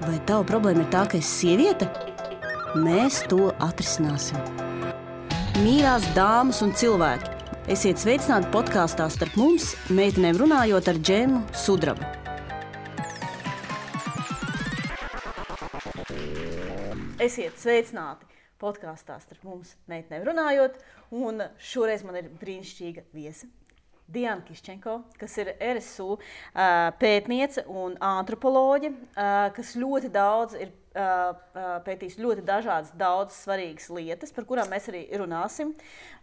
Vai tava problēma ir tā, ka esi sieviete? Mēs to atrisināsim. Mīļās dāmas un cilvēki, esiet sveicināti podkāstā Starp mums, meitenēm runājot ar Džemu Sudrabu. Esiet sveicināti podkāstā Starp mums, meitenēm runājot, un šoreiz man ir brīnišķīga viesa. Diana Kiščenko, kas ir RSU pētniece un antropoloģe, kas ļoti daudz ir pētījis ļoti daudz svarīgas lietas, par kurām mēs arī runāsim.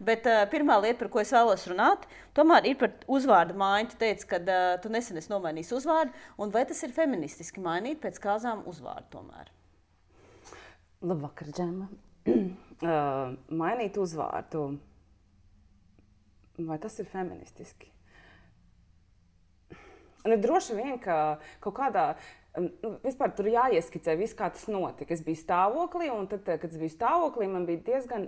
Bet pirmā lieta, par ko es vēlos runāt, tomēr ir par uzvārdu maiņu. Tu teici, ka tu nesen esi nomainījis uzvārdu, un vai tas ir feministiski mainīt pēc kāzām uzvārdu tomēr? Labvakar, Džema. Mainīt uzvārdu. Vai tas ir feministiski? Droši vien, ka kaut kādā, vispār tur jāieskicē viss, kā tas notika. Es biju stāvoklī, un tad, kad es biju stāvoklī, man bija diezgan,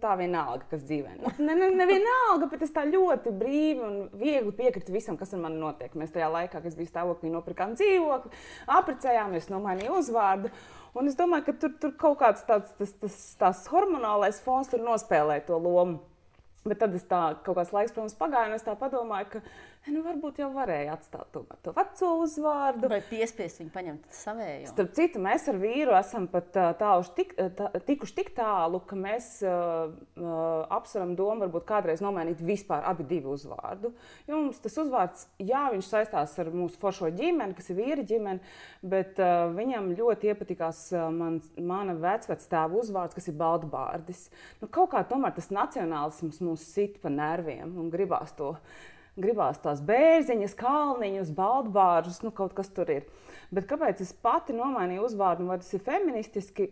tā vienalga, kas dzīvē. Ne vienalga, bet es tā ļoti brīvi un viegli piekritu visam, kas ar mani notiek. Mēs tajā laikā, kad es biju stāvoklī, nopirkām dzīvokli, apprecējāmies, nomainīju uzvārdu. Un es domāju, ka tur kaut kāds tās hormonālais fons tur nospēlē to lomu. Bet tad es kaut kāds laiks, protams, pagāju, un es tā padomāju, ka varbūt jau varēja atstāt to veco uzvārdu. Vai piespiest viņu paņemt savējo? Starp citu, mēs ar vīru esam pat tikuši tik tālu, ka mēs apsveram domu varbūt kādreiz nomainīt vispār abi divi uzvārdu. Jo mums tas uzvārds, jā, viņš saistās ar mūsu foršo ģimeni, kas ir vīra ģimeni, bet viņam ļoti iepatikās mana vecvectēva uzvārds, kas ir Baltbārdis. Kaut kā tomēr tas nacionālisms mūs sit pa nerviem un gribās tās bērziņas, kalniņus, baltbāržus, kaut kas tur ir. Bet kāpēc es pati nomainīju uzvārdu, vai tas ir feministiski?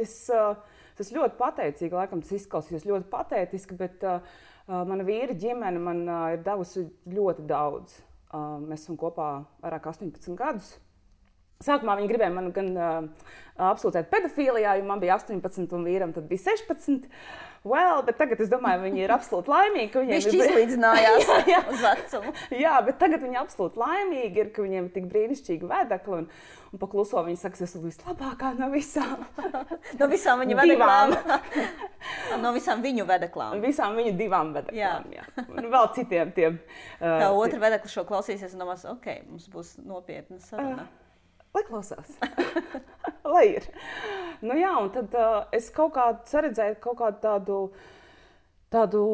Es ļoti pateicīgi, laikam tas izklausījās ļoti patētiski, bet mana vīra ģimene man ir devusi ļoti daudz. Mēs esam kopā vairāk 18 gadus. Sākumā viņi gribēja man gan apsūdzēt pedofīlijā, jo man bija 18 un vīram tad bija 16. Bet tagad es domāju, viņi ir absolūti laimīgi, ka viņiem ir izlīdzinājās uz vecumu. Jā, bet tagad viņi absolūti laimīgi ir, ka viņiem ir tik brīnišķīgi vedekli un pakluso viņi saka, es esmu vislabākā no visām. No visām viņu vedeklām. No visām viņu vedeklām. Visām viņu divām vedeklām, jā. Un vēl citiem tiem. Tā otra vedekla šo klausīsies un domās, mums būs nopietna saruna. Lai klausās, lai ir. Jā, un tad es kaut kā saredzēju kaut kādu tādu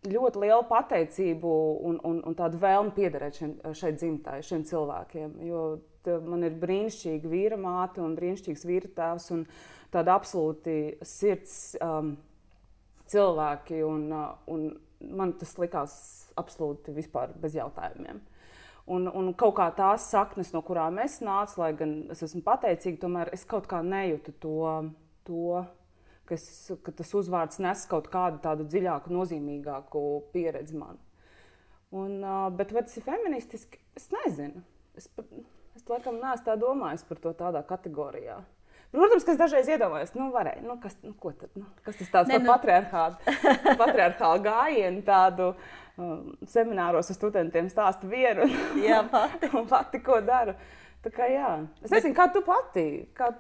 ļoti lielu pateicību un tādu vēlmi piederēt šai dzimtai, šiem cilvēkiem. Jo man ir brīnišķīga vīra māte un brīnišķīgs vīra tēvs un tāda absolūti sirds cilvēki. Un man tas likās absolūti vispār bez jautājumiem. Un kaut kā tās saknes, no kurām es nācu, lai gan es esmu pateicīga, tomēr es kaut kā nejūtu to ka tas uzvārds nes kaut kādu tādu dziļāku, nozīmīgāku pieredzi man. Bet vai tas ir feministiski? Es nezinu. Es laikam neesmu tā domājis par to tādā kategorijā. Protams, ka es dažreiz iedomājos, varēja, ko tad, kas tas tāds par patriarchālu gājienu tādu semināros ar studentiem stāstu vienu un pati, ko daru. Tā kā jā. Es nezinu, kā tu pati, kā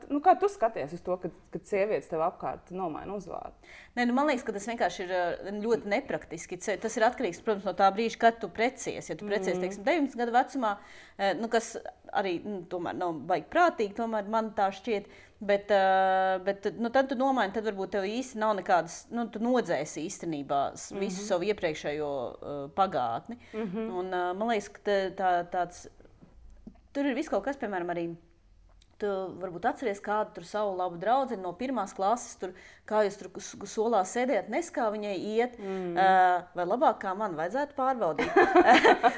tu skaties uz to, kad sievietes tev apkārt nomaina uzvārdu? Man liekas, ka tas vienkārši ir ļoti nepraktiski. Tas ir atkarīgs, protams, no tā brīža, kad tu precies. Ja tu precies, teiksim, 19 gadu vecumā, kas arī tomēr nav baigi prātīgi, tomēr man tā šķiet. Bet tad tu nomaini, tad varbūt tev īsti nav nekādas, tu nodzēsi īstenībā visu savu iepriekšējo pagātni. Un man liekas, ka tāds, tur ir viss kaut kas, piemēram, arī tu varbūt atceries kādu tur savu labu draudzeni no pirmās klases, kā jūs tur solā sēdējat, nes kā viņai iet, vai labāk kā man vajadzētu pārbaudīt.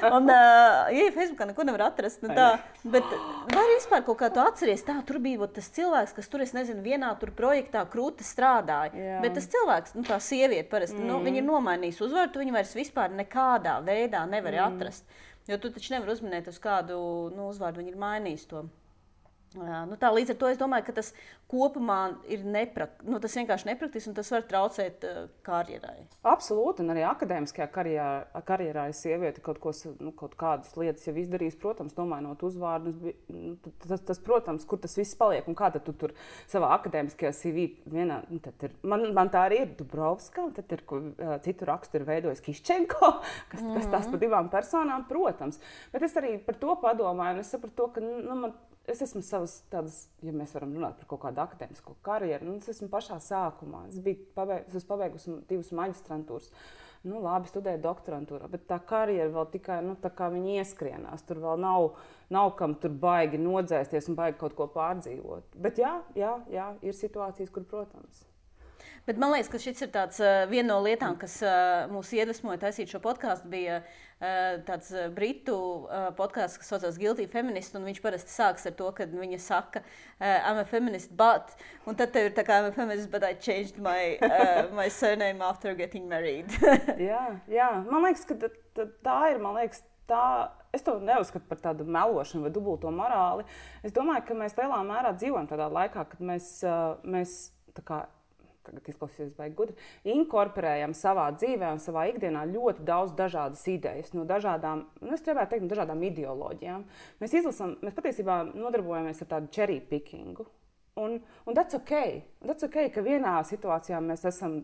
Un, ja Facebookā neko nevar atrast, bet vai vispār kaut kā tu atceries, tur bija tas cilvēks, kas tur, es nezinu, vienā tur projektā krūti strādāja, bet tas cilvēks, tā sieviete parasti, viņa ir nomainījis uzvārdu, tu viņu vairs vispār nekādā veidā nevari atrast, jo tu taču nevar uzminēt uz kādu uzvārdu, viņa ir mainījis to. Tā līdz ar to es domāju, ka tas kopumā ir tas vienkārši nepraktiski un tas var traucēt karjerai. Absolūti, un arī akadēmiskajā karjerā ir sieviete kaut kādas lietas jau izdarījis, protams, nomainot uzvārdus. Tas, protams, kur tas viss paliek un kā tad tu tur savā akadēmiskajā CV vienā, tad ir, man tā arī ir Dubrovska, un tad ir, citu rakstu ir veidojis Kiščenko, kas tās pa divām personām, protams. Bet es arī par to padomāju, un es sapratu to, ka, es esmu savas tādas, ja mēs varam runāt par kaut kādu akadēmisko karjeru, es esmu pašā sākumā. Es esmu pabeigusi 2 maģistrantūras. Labi, studēju doktorantūrā, bet tā karjera vēl tikai, tā kā viņi ieskrienās. Tur vēl nav kam tur baigi nodzēsties un baigi kaut ko pārdzīvot. Bet jā, ir situācijas, kur, protams. Bet man liekas, ka šis ir viena no lietām, kas mūs iedvesmoja taisīt šo podkāstu, bija tāds britu podkāsts, kas saucās Guilty Feminist, un viņš parasti sāks ar to, ka viņa saka I'm a feminist, but, un tad tev ir tā kā I'm a feminist, but I changed my surname after getting married. jā, man liekas, ka tā ir, es to neuzskatu par tādu melošanu vai dubulto morāli. Es domāju, ka mēs lielā mērā dzīvojam tādā laikā, kad mēs tā kā tagad izklausīsies baigi gudri, inkorporējam savā dzīvē un savā ikdienā ļoti daudz dažādas idejas, no dažādām, es gribētu teikt, no dažādām ideoloģijām. Mēs patiesībā nodarbojamies ar tādu cherry pickingu. Un that's okay. That's okay, ka vienā situācijā mēs esam,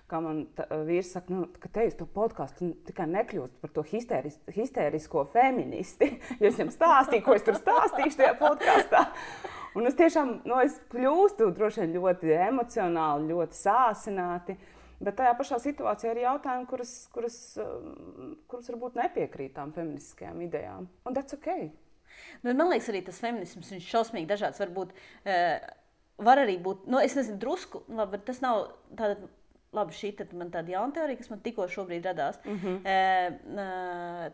kā man vīrs saka, ka te uz to podcastu tikai nekļūst par to histērisko feministi, jo es viņam stāstīju, ko es tur stāstīšu tajā podkastā. Un es tiešām, es kļūstu droši vien ļoti emocionāli, ļoti sāsināti, bet tajā pašā situācijā ir jautājumi, kuras varbūt nepiekrīt tām feministiskajām idejām. Un that's okay. Man liekas, arī tas feminisms, viņš šausmīgi dažāds var arī būt, es nezinu, drusku, labi, bet tas nav tāda, labi, šī tad man tāda jauna teorija, kas man tikko šobrīd radās.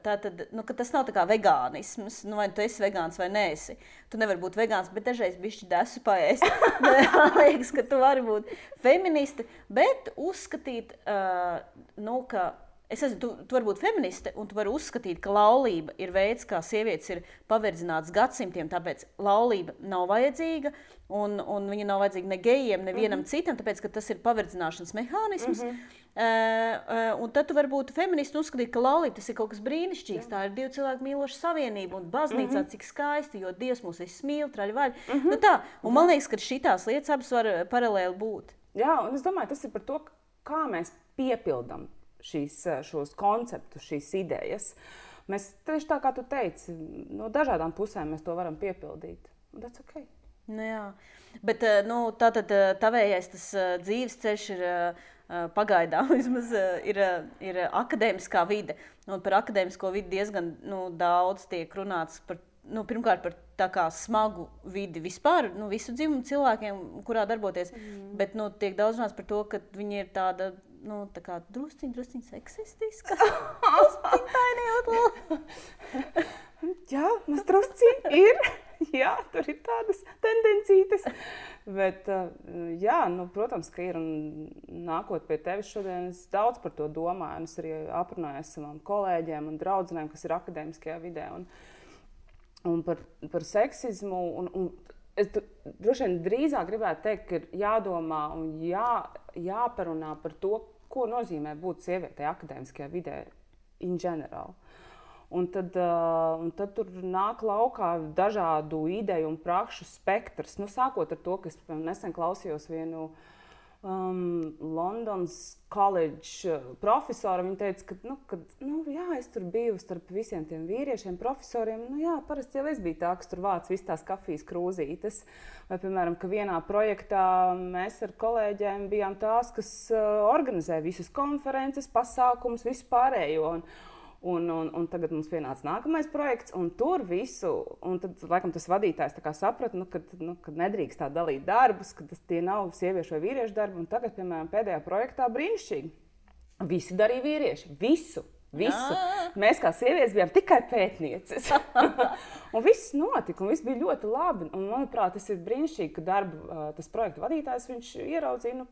Tātad, ka tas nav tā kā vegānisms, vai tu esi vegāns vai neesi. Tu nevari būt vegāns, bet dažreiz bišķi desu paēst. Man liekas, ka tu vari būt feministi, bet uzskatīt, ka tu vari būt feministe, un tu vari uzskatīt, ka laulība ir veids, kā sievietes ir paverdzinātas gadsimtiem, tāpēc laulība nav vajadzīga, un viņa nav vajadzīga ne gejiem, nevienam citam, tāpēc, ka tas ir paverdzināšanas mehānisms. Un tad tu vari būt feministi un uzskatīt, ka laulība tas ir kaut kas brīnišķīgs. Tā ir 2 cilvēku mīloša savienība, un baznīcā cik skaisti, jo Dievs mūs visus mīl, traļvaļ. Un man liekas, ka šitās lietas abas var paralēli būt. Jā, un es domāju, tas ir par to, kā mēs piepildam šos konceptus, šīs idejas. Mēs tieši tā, kā tu teici, no dažādām pusēm mēs to varam piepildīt. That's okay. Jā, bet tātad tavējais tas dzīves ceļš ir pagaidām vismaz ir akadēmiskā vide. Un par akadēmisko vidi diezgan daudz tiek runāts par, pirmkārt par tā kā smagu vidi vispār, visu dzimumu cilvēkiem, kurā darboties, bet tiek daudz runāts par to, ka viņi ir tāda tā kā drusciņ seksistiska. Jā, mēs drusciņ ir. Jā, tur ir tādas tendencītes. Bet, protams, ka ir. Un nākot pie tevis šodien, es daudz par to domāju. Un es arī aprunājos savām kolēģiem un draudzenēm, kas ir akadēmiskajā vidē. Un par seksismu. Un es droši vien drīzāk gribētu teikt, ka ir jādomā un jāparunā par to, ko nozīmē būt sievietei akadēmiskajā vidē in general. Un tad tur nāk laukā dažādu ideju un prakšu spektrs. Sākot ar to, ka es nesen klausījos vienu Londons College profesoru. Viņa teica, ka es tur biju starp visiem tiem vīriešiem, profesoriem. Parasti jau es biju tā, kas tur vāc visas tās kafijas krūzītes. Vai, piemēram, ka vienā projektā mēs ar kolēģiem bijām tās, kas organizē visas konferences, pasākumus, visu pārējo. Un tagad mums pienāca nākamais projekts, un tur visu, un tad, laikam, tas vadītājs tā kā saprata, ka nedrīkst tā dalīt darbus, ka tie nav sieviešu vai vīriešu darbi, un tagad, piemēram, pēdējā projektā brīnišķīgi. Visi darīja vīrieši, visu. Mēs kā sievietes bijām tikai pētnieces. Un viss notika, un viss bija ļoti labi, un, manuprāt, tas ir brīnišķīgi, ka tas projekta vadītājs, viņš ieraudzīja,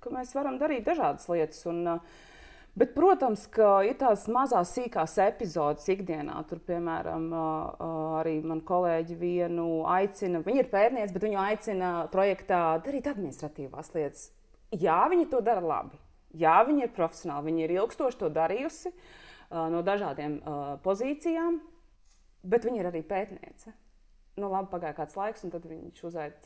ka mēs varam darīt dažādas lietas, Bet, protams, ka ir tās mazās sīkās epizodes ikdienā. Tur, piemēram, arī man kolēģi vienu aicina, viņa ir pētniece, bet viņu aicina projektā darīt administratīvās lietas. Jā, viņi to dara labi. Jā, viņi ir profesionāli, viņi ir ilgstoši to darījusi no dažādiem pozīcijām, bet viņi ir arī pētniece. Nu, labi, pagāja kāds laiks, un tad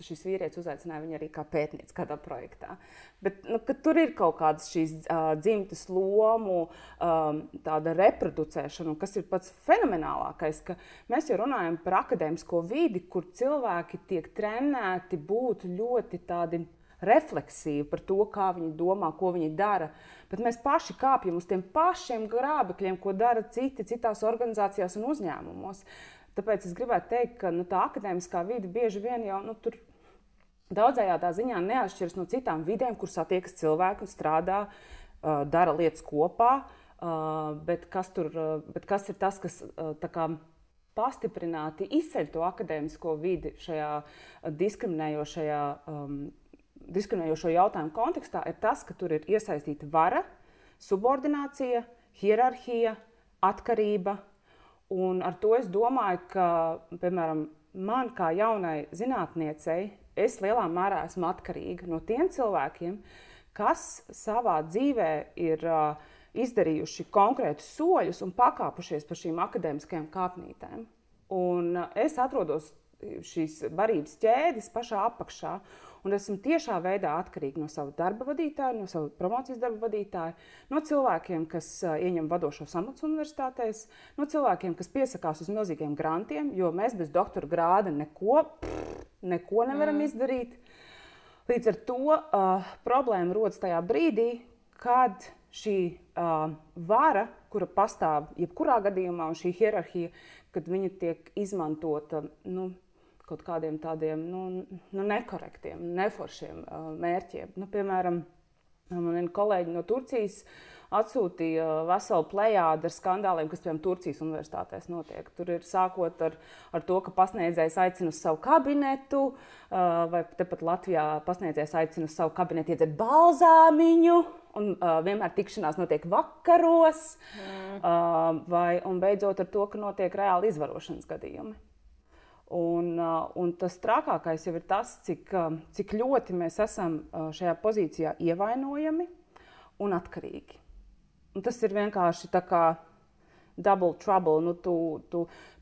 šis vīrietis uzaicināja viņu arī kā pētnieci kādā projektā. Bet tur ir kaut kādas šīs dzimtes lomu, tāda reproducēšana, un kas ir pats fenomenālākais, ka mēs jau runājam par akadēmisko vidi, kur cilvēki tiek trenēti būt ļoti tādi refleksīvi par to, kā viņi domā, ko viņi dara. Bet mēs paši kāpjam uz tiem pašiem grābekļiem, ko dara citās organizācijās un uzņēmumos. Tāpēc es gribētu teikt, ka tā akadēmiskā vide bieži vien jau tur daudzējādā ziņā neatšķiras no citām vidēm, kur satiekas cilvēki un strādā, dara lietas kopā. Bet kas ir tas, kas tā kā pastiprināti izceļ to akadēmisko vidi šajā diskriminējošo jautājumu kontekstā, ir tas, ka tur ir iesaistīta vara, subordinācija, hierarhija, atkarība. Un ar to es domāju, ka, piemēram, man kā jaunai zinātniecei, es lielā mērā esmu atkarīga no tiem cilvēkiem, kas savā dzīvē ir izdarījuši konkrētus soļus un pakāpušies pa šīm akadēmiskajām kāpnītēm. Un es atrodos šīs barības ķēdes pašā apakšā, un esmu tiešā veidā atkarīga no sava darba vadītāja, no sava promocijas darba vadītāja, no cilvēkiem, kas ieņem vadošos amatus universitātēs, no cilvēkiem, kas piesakās uz milzīgiem grantiem, jo mēs bez doktora grāda neko nevaram izdarīt. Līdz ar to problēma rodas tajā brīdī, kad šī vara, kura pastāv jebkurā gadījumā, un šī hierarhija, kad viņa tiek izmantota kaut kādiem tādiem nekorektiem, neforšiem mērķiem. Piemēram, man kolēģi no Turcijas atsūtīja veselu plejādu ar skandāliem, kas, piemēram, Turcijas universitātēs notiek. Tur ir sākot ar to, ka pasniedzējs aicina uz savu kabinetu, vai tepat Latvijā pasniedzējs aicina uz savu kabinetu iedzert balzāmiņu, un vienmēr tikšanās notiek vakaros, un beidzot ar to, ka notiek reāli izvarošanas gadījumi. Un tas trakākais jau ir tas, cik ļoti mēs esam šajā pozīcijā ievainojami un atkarīgi. Un tas ir vienkārši tā kā double trouble.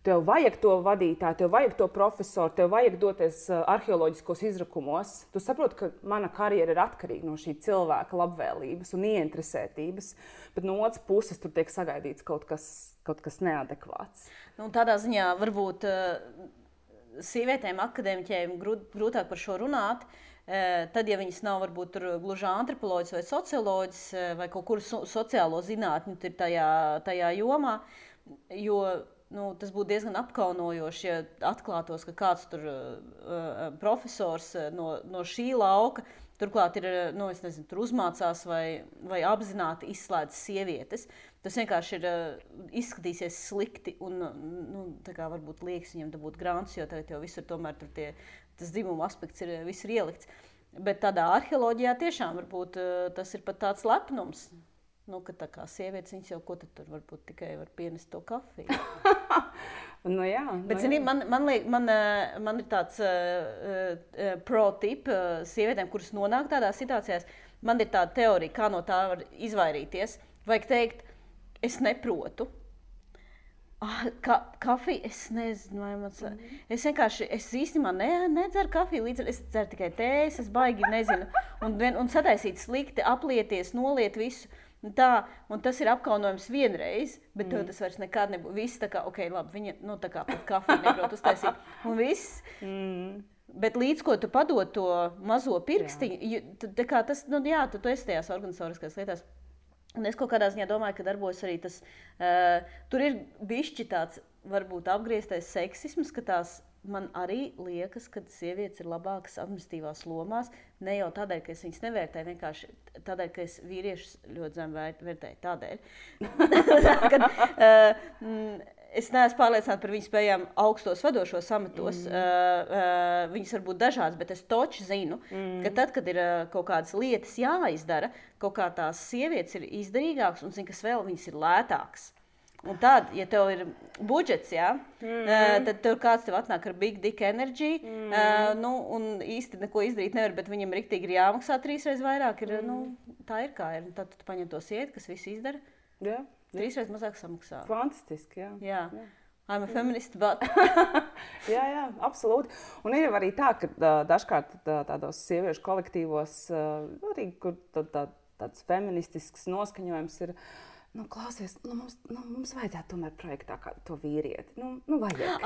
Tev vajag to vadītāju, tev vajag to profesoru, tev vajag doties arheoloģiskos izrakumos. Tu saproti, ka mana karjera ir atkarīga no šī cilvēka labvēlības un ieinteresētības, bet no otras puses tur tiek sagaidīts kaut kas neadekvāts. Tādā ziņā varbūt sievietēm, akadēmiķiem grūtāk par šo runāt, tad, ja viņas nav varbūt gluži antropoloģis vai socioloģis vai kaut kur sociālo zinātņu ir tajā jomā, jo tas būtu diezgan apkaunojoši, ja atklātos, ka kāds tur profesors no šī lauka turklāt ir, tur uzmācās vai apzināti izslēdz sievietes. Tas vienkārši izskatīsies slikti un varbūt liekas viņam dabūt grāns, jo tagad jau visur tomēr tas dzimuma aspekts ir ielikts. Bet tādā arheoloģijā tiešām varbūt tas ir pat tāds lepnums, ka tā kā sievietes viņas jau ko tad tur varbūt tikai var pienest to kafiju. Jā. Bet, zini, man ir tāds pro-tip sievietēm, kuras nonāk tādās situācijās. Man ir tāda teorija, kā no tā var izvairīties. Vajag teikt, es neprotu. Kafiju, es nezinu, vai man... Es īstenībā nedzeru kafiju, es dzeru tikai tējas, es baigi nezinu. Un sataisīt slikti, aplieties, noliet visu. Un tas ir apkaunojums vienreiz, bet tas vairs nekad nebūs. Viss tā kā, labi, viņa tā kā pat kafiju neprot uztaisīt. Un viss. Bet līdz ko tu padod to mazo pirkstiņu, tu esi tajās organizatoriskās lietās. Un es kaut kādā ziņā domāju, ka darbojas arī tas, tur ir bišķi tāds varbūt apgrieztais seksisms, ka tās man arī liekas, ka sievietes ir labākas administratīvās lomās, ne jau tādēļ, ka es viņas nevērtēju, vienkārši tādēļ, ka es vīriešus ļoti zem vērtēju tādēļ. Es neesmu pārliecināta par viņu spējām augstos vadošos amatos. Viņas var būt dažādas, bet es toči zinu, ka tad, kad ir kaut kādas lietas jāizdara, kaut kā tās sievietes ir izdarīgākas un zina, kas vēl viņas ir lētākas. Un tad, ja tev ir budžets, tad tev kāds tev atnāk ar big dick energy, un īsti neko izdarīt nevar, bet viņam riktīgi ir jāmaksā 3 reizes vairāk. Tā ir kā ir. Tad tu paņem to sievieti, kas visu izdara, 3 reizes mazāk samaksā. Fantastiski, jā. I'm a feminist, but... jā, absolūti. Un ir arī tā, ka dažkārt tādos sieviešu kolektīvos, arī, kur tāds feministisks noskaņojums ir, klausies, mums vajadzētu tomēr projektā kādu to vīrieti. Vajag.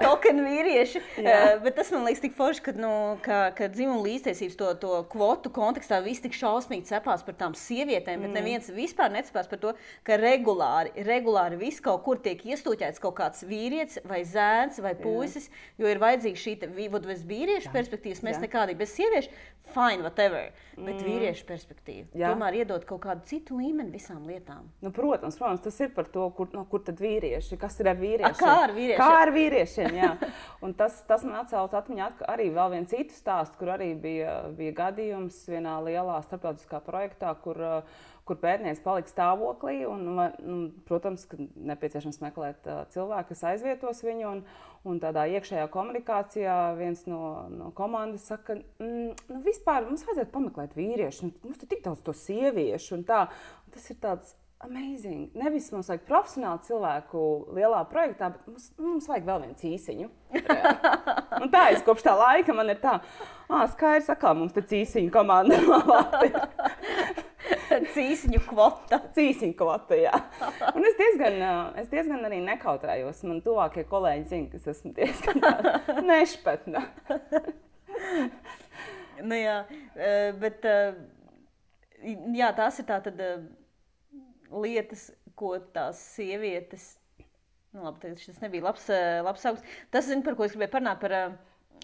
Token vīrieši. Bet tas man liekas tik forši, ka dzimuma līdztiesības to kvotu kontekstā viss tik šausmīgi cepās par tām sievietēm, bet neviens vispār necepās par to, ka regulāri viss kaut kur tiek iestūķēts kaut kāds vīrietis vai zēns vai puisis, jo ir vajadzīga šī bez vīriešu perspektīvas, mēs nekādīgi bez sieviešu, fine, whatever, bet vīriešu perspektīva. Tomēr iedot kaut kādu citu līmeni visām lietām. Protams, tas ir par to, kur tad vīrieši, kas ir ar vīriešiem. Kā ar vīriešiem, jā. Un tas man atcauc atmiņā arī vēl vienu citu stāstu, kur arī bija gadījums vienā lielā starptautiskā projektā, kur pētniece palika stāvoklī, un protams, ka nepieciešams meklēt cilvēku, kas aizvietos viņu, un tādā iekšējā komunikācijā viens no komandas saka, vispār mums vajadzētu pameklēt vīriešu, mums tik daudz to sieviešu, un tā. Un tas ir tāds amazing. Nevis mums vajag profesionālu cilvēku lielā projektā, bet mums vajag vēl viens īsiņu. Un tā es kopš tā laika man ir tā, skaidrs, atkal mums te cīsiņu komanda ir. Cīsiņu kvota. Cīsiņu kvota, jā. Un es diezgan arī nekautrējos. Man tuvākie kolēģi zina, ka es esmu diezgan nešpatna. Bet tās ir tātad lietas, ko tās sievietes... Labi, šis nebija labs sākums. Tas, par ko es gribēju parunāt,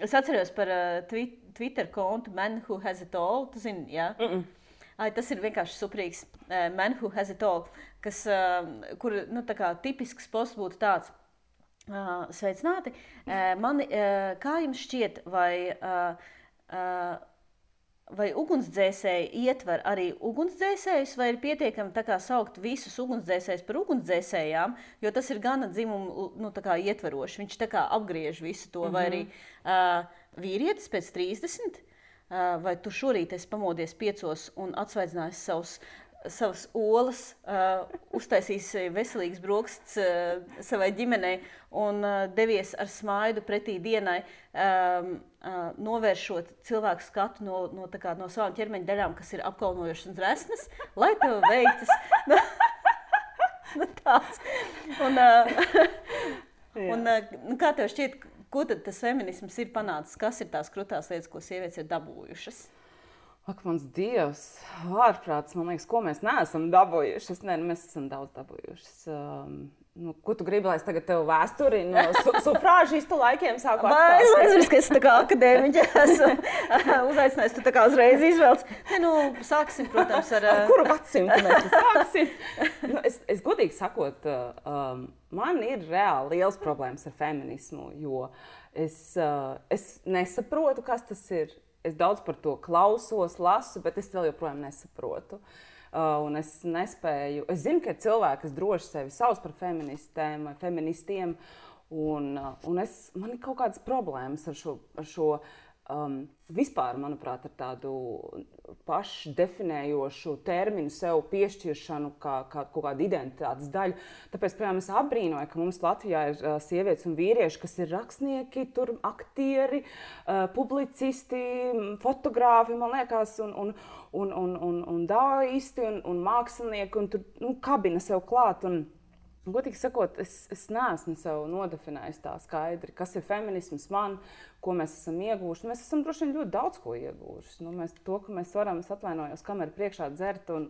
es atceros par Twitter kontu Man Who Has It All. Tu zini, jā? Tas ir vienkārši superīgs Man Who Has It All, kur tā kā tipisks posts būtu tāds. Sveicināti. Kā jums šķiet, vai ugunsdzēsēji ietver arī ugunsdzēsējus, vai ir pietiekami tā kā saukt visus ugunsdzēsējus par ugunsdzēsējām, jo tas ir gana dzimumu tā kā ietveroši. Viņš tā kā apgriež visu to, vai arī vīrietis pēc 30, vai tu šorīt esi pamodies 5 un atsvaidzinājies savas olas, uztaisījis veselīgas brokastis savai ģimenei un devies ar smaidu pretī dienai, novēršot cilvēku skatu no savām ķermeņa daļām, kas ir apkaunojošas un resnas, lai tev veicas. Tāds. Kā tev šķiet, ko tad tas feminisms ir panācis? Kas ir tās krutās lietas, ko sievietes ir dabūjušas? Ak, mans Dievs, ārprāts, man liekas, ko mēs neesam dabūjušas. Mēs esam daudz dabūjušas. Ko tu gribi, lai es tagad tev vēsturi no sufrāžistu laikiem sāku atstāstīt? Es nezinu, ka es tā kā akadēmiķa esmu uzaicinājis, tu tā kā uzreiz izvelc. Sāksim, protams, ar... Kuru gadsimtu mēs sāksim? Es godīgi sakot, man ir reāli liels problēmas ar feminismu, jo es nesaprotu, kas tas ir. Es daudz par to klausos, lasu, bet es vēl joprojām nesaprotu. Un es nespēju. Es zinu, ka ir cilvēki, kas droši sevi sauc par feministēm vai feministiem. Man ir kaut kādas problēmas ar šo vispār, manuprāt, ar tādu pašdefinējošu terminu sev piešķiršanu kā kaut kādu identitātes daļu. Tāpēc, piemēram, es apbrīnoju, ka mums Latvijā ir sievietes un vīrieši, kas ir rakstnieki, aktieri, publicisti, fotogrāfi, man liekas, un dāisti, un mākslinieki, un tur kabina sev klāt. Godīgi sakot, es neesmu sev nodefinējis tā skaidri, kas ir feminisms man, ko mēs esam ieguvuši. Mēs esam droši vien ļoti daudz ko ieguvuši. To, ka mēs varam, es atvainojos, kameru priekšā dzert un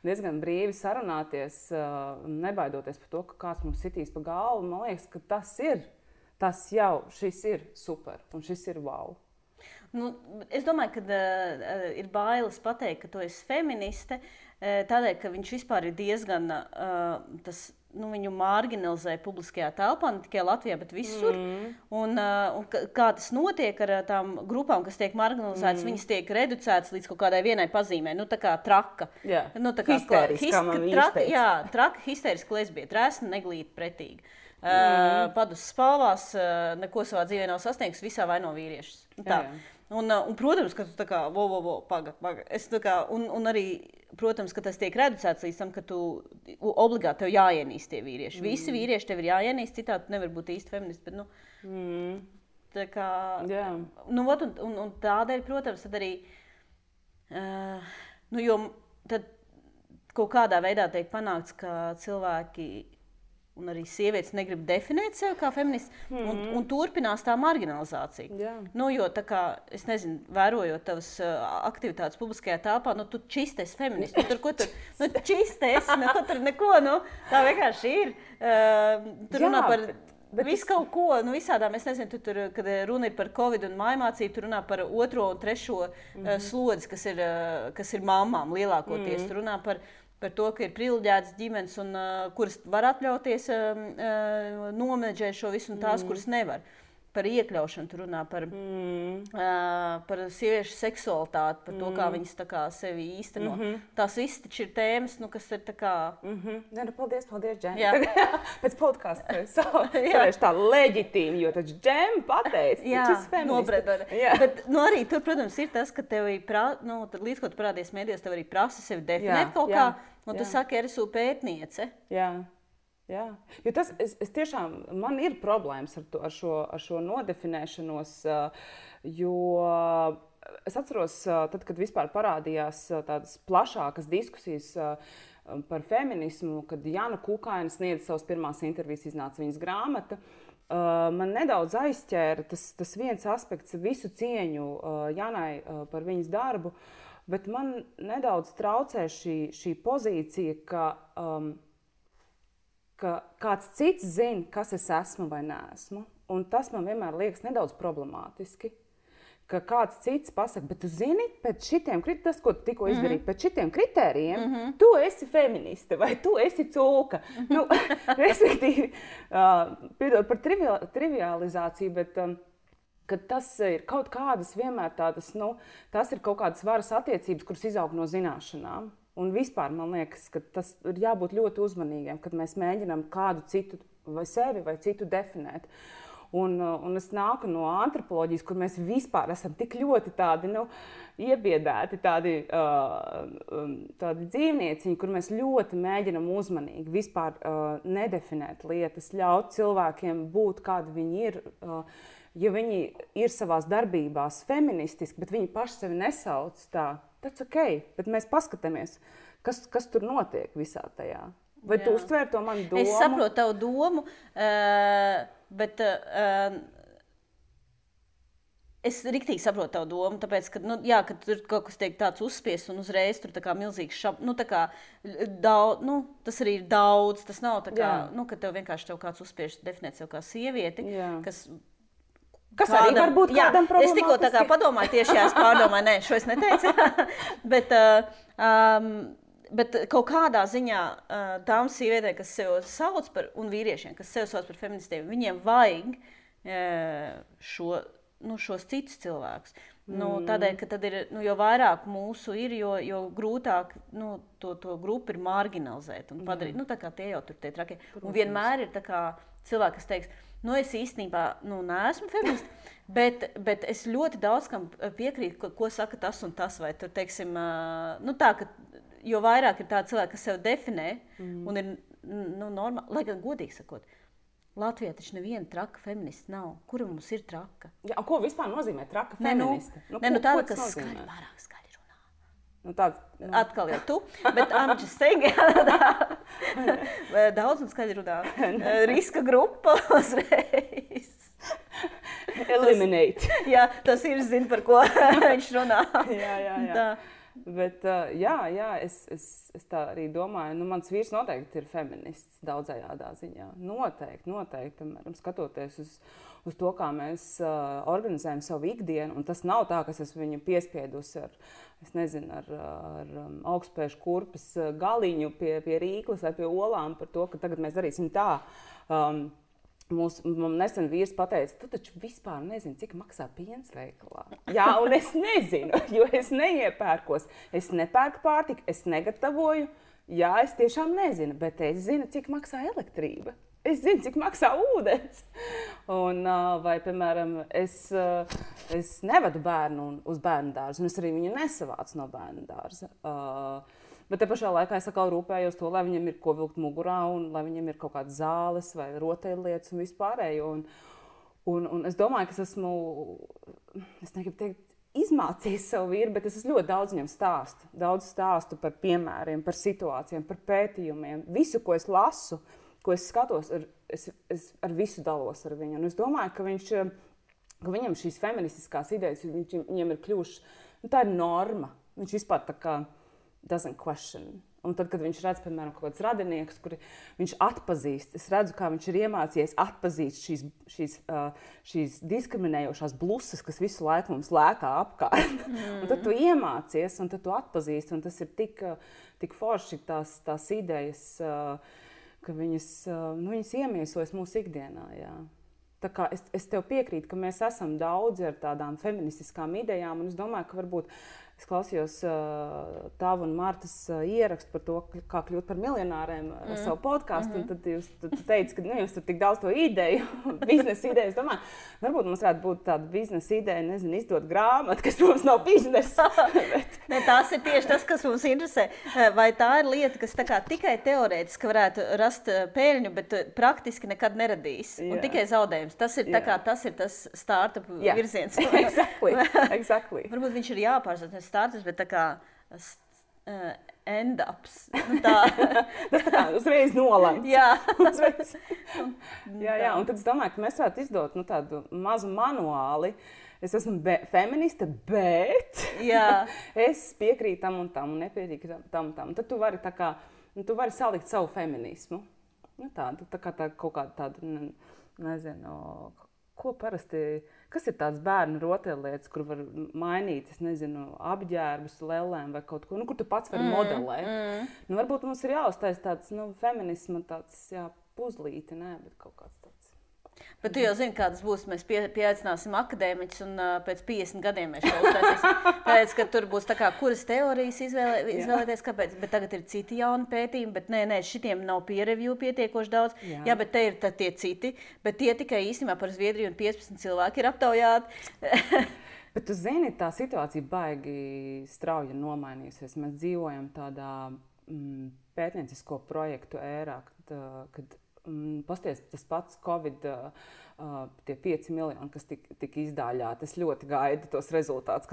diezgan brīvi sarunāties, nebaidoties par to, ka kāds mums sitīs pa galvu. Man liekas, ka šis ir super un šis ir wow. Es domāju, ka ir bailes pateikt, ka tu esi feministe, tādēļ, ka viņš vispār ir diezgan tas viņu marginalizē publiskajā telpā, ne tikai Latvijā, bet visur. Un kā tas notiek ar tām grupām, kas tiek marginalizētas, viņas tiek reducētas līdz kaut kādai vienai pazīmei, tā kā traka. Tā kā traka, histēriska lesbieta, resna, neglīta, pretīga. Padus spalvās, neko savā dzīvē nav sasniegs, visā vaino vīriešus. Un, protams, ka tu tā kā, paga. Es tā kā, un arī, protams, ka tas tiek reducēts līdz tam, ka tu obligāti tev jāienīst tie vīrieši. Visi vīrieši tev ir jāienīst, citādi tu nevar būt īsti feministi, bet, tā kā, un tādēļ, protams, tad arī, jo tad kaut kādā veidā tiek panākts, ka cilvēki un arī sievietes negrib definēt sevi kā feministi, un turpinās tā marginalizācija. Jo tā kā, es nezinu, vērojot tavas aktivitātes publiskajā telpā, tu čistes feministi, tur čistes, tur neko, tā vienkārši ir. Tur runā par visu kaut ko, visādām, es nezinu, tur, kad runa ir par Covid un mājmācību, tur runā par 2. un 3. slodzi, kas ir mammām lielākoties, tur runā par to, ka ir privileģētas ģimenes, kuras var atļauties nomenedžēt šo visu, un tās, kuras nevar. Par iekļaušanu tur runā, par sieviešu seksualitāti, par to, kā viņas tā kā sevi īsteno. Tās visas taču ir tēmas, kas ir tā kā... Paldies, Džem. Pēc podkasta es tā leģitīmi, jo taču Džem pateica, taču feministi. Bet arī tur, protams, ir tas, ka tev līdz, ko tu parādies mēdījos, tev arī prasa sevi definēt kaut kā, un tu saki, es esmu pētniece. Jā, jo tas, es tiešām, man ir problēmas ar šo nodefinēšanos, jo es atceros, tad, kad vispār parādījās tādas plašākas diskusijas par feminismu, kad Jana Kukaina sniedza savas pirmās intervijas, iznāca viņas grāmata, man nedaudz aizķēra tas viens aspekts, visu cieņu Janai par viņas darbu, bet man nedaudz traucē šī pozīcija, ka kāds cits zina, kas es esmu vai neesmu. Un tas man vienmēr liekas nedaudz problemātiski. Ka kāds cits pasaka, bet tu zini, pēc šitiem, tas, ko tu tikko izdarīji, pēc šitiem kritērijiem, tu esi feministe vai tu esi cūka. Respektīvi, piedod par trivializāciju, bet kad tas ir kaut kādas vienmēr tādas, tas ir kaut kādas varas attiecības, kuras izaug no zināšanām. Un vispār man liekas, ka tas ir jābūt ļoti uzmanīgiem, kad mēs mēģinām kādu citu vai sevi vai citu definēt. Un es nāku no antropoloģijas, kur mēs vispār esam tik ļoti tādi, iebiedēti, tādi dzīvnieciņi, kur mēs ļoti mēģinam uzmanīgi vispār nedefinēt lietas, ļaut cilvēkiem būt, kādi viņi ir. Ja viņi ir savās darbībās feministiski, bet viņi paši sevi nesauc tā, tas ok, bet mēs paskatāmies, kas tur notiek visā tajā. Vai tu uztvēri to manu domu? Es saprotu tavu domu, bet es riktīgi saprotu tavu domu, tāpēc, ka, ka tur kaut kas tiek tāds uzspiests un uzreiz tur tā kā milzīgs tas arī ir daudz, tas nav tā kā, ka tev vienkārši kāds uzspiež definēt sev kā sievieti, kas arī var būt kādam problemātiski. Es tikko tā kā padomāju, tieši es pārdomāju, šo es neteicu, bet kaut kādā ziņā tām sievietēm, kas sev sauc par, un vīriešiem, kas sev sauc par feministiem, viņiem vajag šos citus cilvēkus. Tādēļ, ka tad ir, jo vairāk mūsu ir, jo grūtāk to grupu ir marginalizēt un padarīt. Tā kā tie jau tur tie trakie. Un vienmēr ir tā kā cilvēki, kas teiks, es īstenībā neesmu feministi, bet es ļoti daudz kam piekrītu, ko saka tas un tas. Vai tur, teiksim, tā, ka jo vairāk ir tādi cilvēki, kas sev definē un ir normāli, lai gan godīgi sakot, Latvijā taču neviena traka feminista nav. Kura mums ir traka? Jā, ko vispār nozīmē traka feministe? Tāda, kas pārāk skaļi runā. Atkal jau tu, bet I'm just saying, daudz un skaļi runā. Riska grupa uzreiz. Eliminate. Jā, tas ir, zin, par ko viņš runā. Jā. Bet, es tā arī domāju, mans vīrs noteikti ir feminists daudzajādā ziņā. Noteikti, piemēram, skatoties uz to, kā mēs organizējam savu ikdienu, un tas nav tā, ka es esmu viņu piespiedusi ar augstspēšu kurpes galiņu pie Rīklas vai pie olām par to, ka tagad mēs darīsim tā. Mums nesen vīrs pateica, tu taču vispār nezini, cik maksā piens veikalā. Jā, un es nezinu, jo es neiepērkos. Es nepērku pārtiku, es negatavoju. Jā, es tiešām nezinu, bet es zinu, cik maksā elektrība. Es zinu, cik maksā ūdens. Un, vai, piemēram, es nevedu bērnu uz bērnu dārzu, un es arī viņu nesavācu no bērnu dārza. Bet te pašā laikā es atkal rūpējos to, lai viņam ir ko vilkt mugurā, un lai viņam ir kaut kādas zāles vai rotaļlietas un vispārējo. Un es domāju, ka es negribu teikt, izmācījis savu vīru, bet es ļoti daudz viņam stāstu. Daudz stāstu par piemēriem, par situācijām, par pētījumiem. Visu, ko es lasu, ko es skatos, es ar visu dalos ar viņu. Un es domāju, ka viņam šīs feministiskās idejas, viņam ir kļuvušas, tā ir norma. Viņš vispār tā kā doesn't question. Un tad, kad viņš redz, piemēram, kaut kāds radinieks, kuri viņš atpazīst, es redzu, kā viņš ir iemācījies atpazīst šīs diskriminējošās blusas, kas visu laiku mums lēkā apkārt. Un tad tu iemācies, un tad tu atpazīsti, un tas ir tik forši tās idejas, ka viņas iemiesojas mūsu ikdienā, jā. Tā kā es tev piekrītu, ka mēs esam daudzi ar tādām feministiskām idejām, un es domāju, ka varbūt es klausījos tavu un Martas ierakstu par to, kā kļūt par miljonāriem savu podcastu, un tad tu teici, ka jums tur tik daudz to ideju, biznesa ideju. Es domāju, varbūt mums varētu būt tāda biznesa ideja, izdot grāmatu, kas mums nav biznesa. Ne, tās ir tieši tas, kas mums interesē. Vai tā ir lieta, kas tā kā tikai teorētiski varētu rast peļņu, bet praktiski nekad neradīs, un tikai zaudējums. Tas ir, tas ir tas startup virziens. Exactly. Varbūt viņš ir jāpārstāv startups, bet tā kā end-ups. Tas tā kā uzreiz nolemts. Jā. Jā, un tad es domāju, ka mēs varētu izdot tādu mazu manuāli. Es esmu feministe, bet es piekrītu tam un tam, un nepiekrītu tam un tam. Tad tu vari salikt savu feminismu. Tā kā kaut kāda tāda, nezinu, ko parasti, kas ir tāds bērnu rotaļlietas, kur var mainīt, es nezinu, apģērbus, lellēm vai kaut ko, kur tu pats vari modelēt. Varbūt mums ir jāuztais tāds, feminisma tāds, puzlīti, bet kaut kāds tāds. Bet tu jau zini, kādas būs. Mēs pieaicināsim akadēmiķus, un pēc 50 gadiem mēs šo uztaisīsim. Tāpēc, ka tur būs tā kā, kuras teorijas izvēlēties, kāpēc. Bet tagad ir citi jauni pētījumi, bet nē, šitiem nav peer review pietiekoši daudz. Jā, bet te ir tie citi, bet tie tikai īstenībā par Zviedriju un 15 cilvēki ir aptaujāti. Bet tu zini, tā situācija baigi strauji nomainījusies. Mēs dzīvojam tādā pētniecisko projektu ērā, kad pasties tas pats Covid, tie 5 miljoni, kas tika izdāļāti. Es ļoti gaidu tos rezultātus,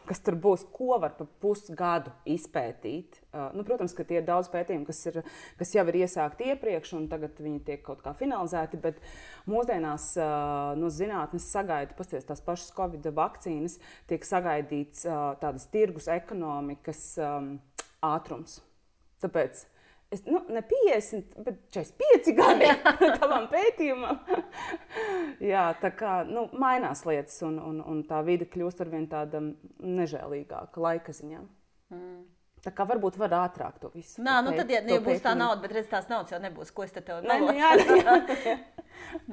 kas tur būs, ko var pa pusgadu izpētīt. Protams, ka tie ir daudz pētījumu, kas jau ir iesākti iepriekš, un tagad viņi tiek kaut kā finalizēti, bet mūsdienās no zinātnes sagaida, pasties tās pašas Covid vakcīnas, tiek sagaidīts tādas tirgus ekonomikas ātrums. Tāpēc ne 50, bet 45 gadi tavam pētījumam. Jā, tā kā mainās lietas, un tā vide kļūst arvien tāda nežēlīgāka laika ziņā. Tā kā varbūt var ātrāk to visu. Tad, ja būs tā nauda, bet redz, tās naudas jau nebūs, ko es te tev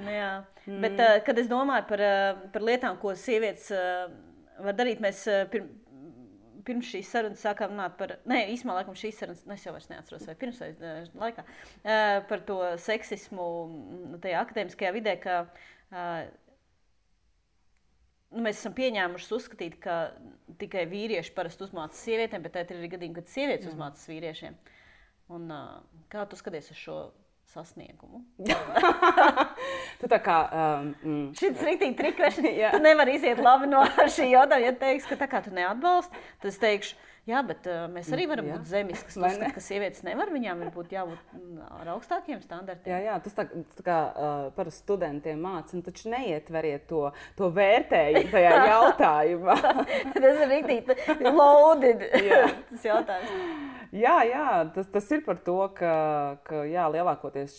Jā. Bet, kad es domāju par lietām, ko sievietes var darīt, mēs pirms šīs sarunas sākām runāt par, īstumā laikam šīs sarunas, es jau vairs neatceros, vai pirms vai laikā, par to seksismu tajā akadēmiskajā vidē, ka mēs esam pieņēmuši uzskatīt, ka tikai vīrieši parasti uzmācas sievietēm, bet tā ir arī gadījumi, kad sievietes uzmācas vīriešiem. Un kā tu skaties uz šo sasniegumu? Tu tā kā... Šis riktīgi trikvešana. Tu nevari iziet labi no šī jautājuma. Ja teiks, ka tā kā tu neatbalsti, tad es teikšu, Jā, bet mēs arī varam būt zemes, kas uzskata, ka sievietes nevar, viņām ir jābūt ar augstākiem standartiem. Jā, tas tā kā par studentiem māca, taču neietveriet to vērtējumu tajā jautājumā. Tas ir rītīgi loaded, tas jautājums. Jā, tas ir par to, ka jā, lielākoties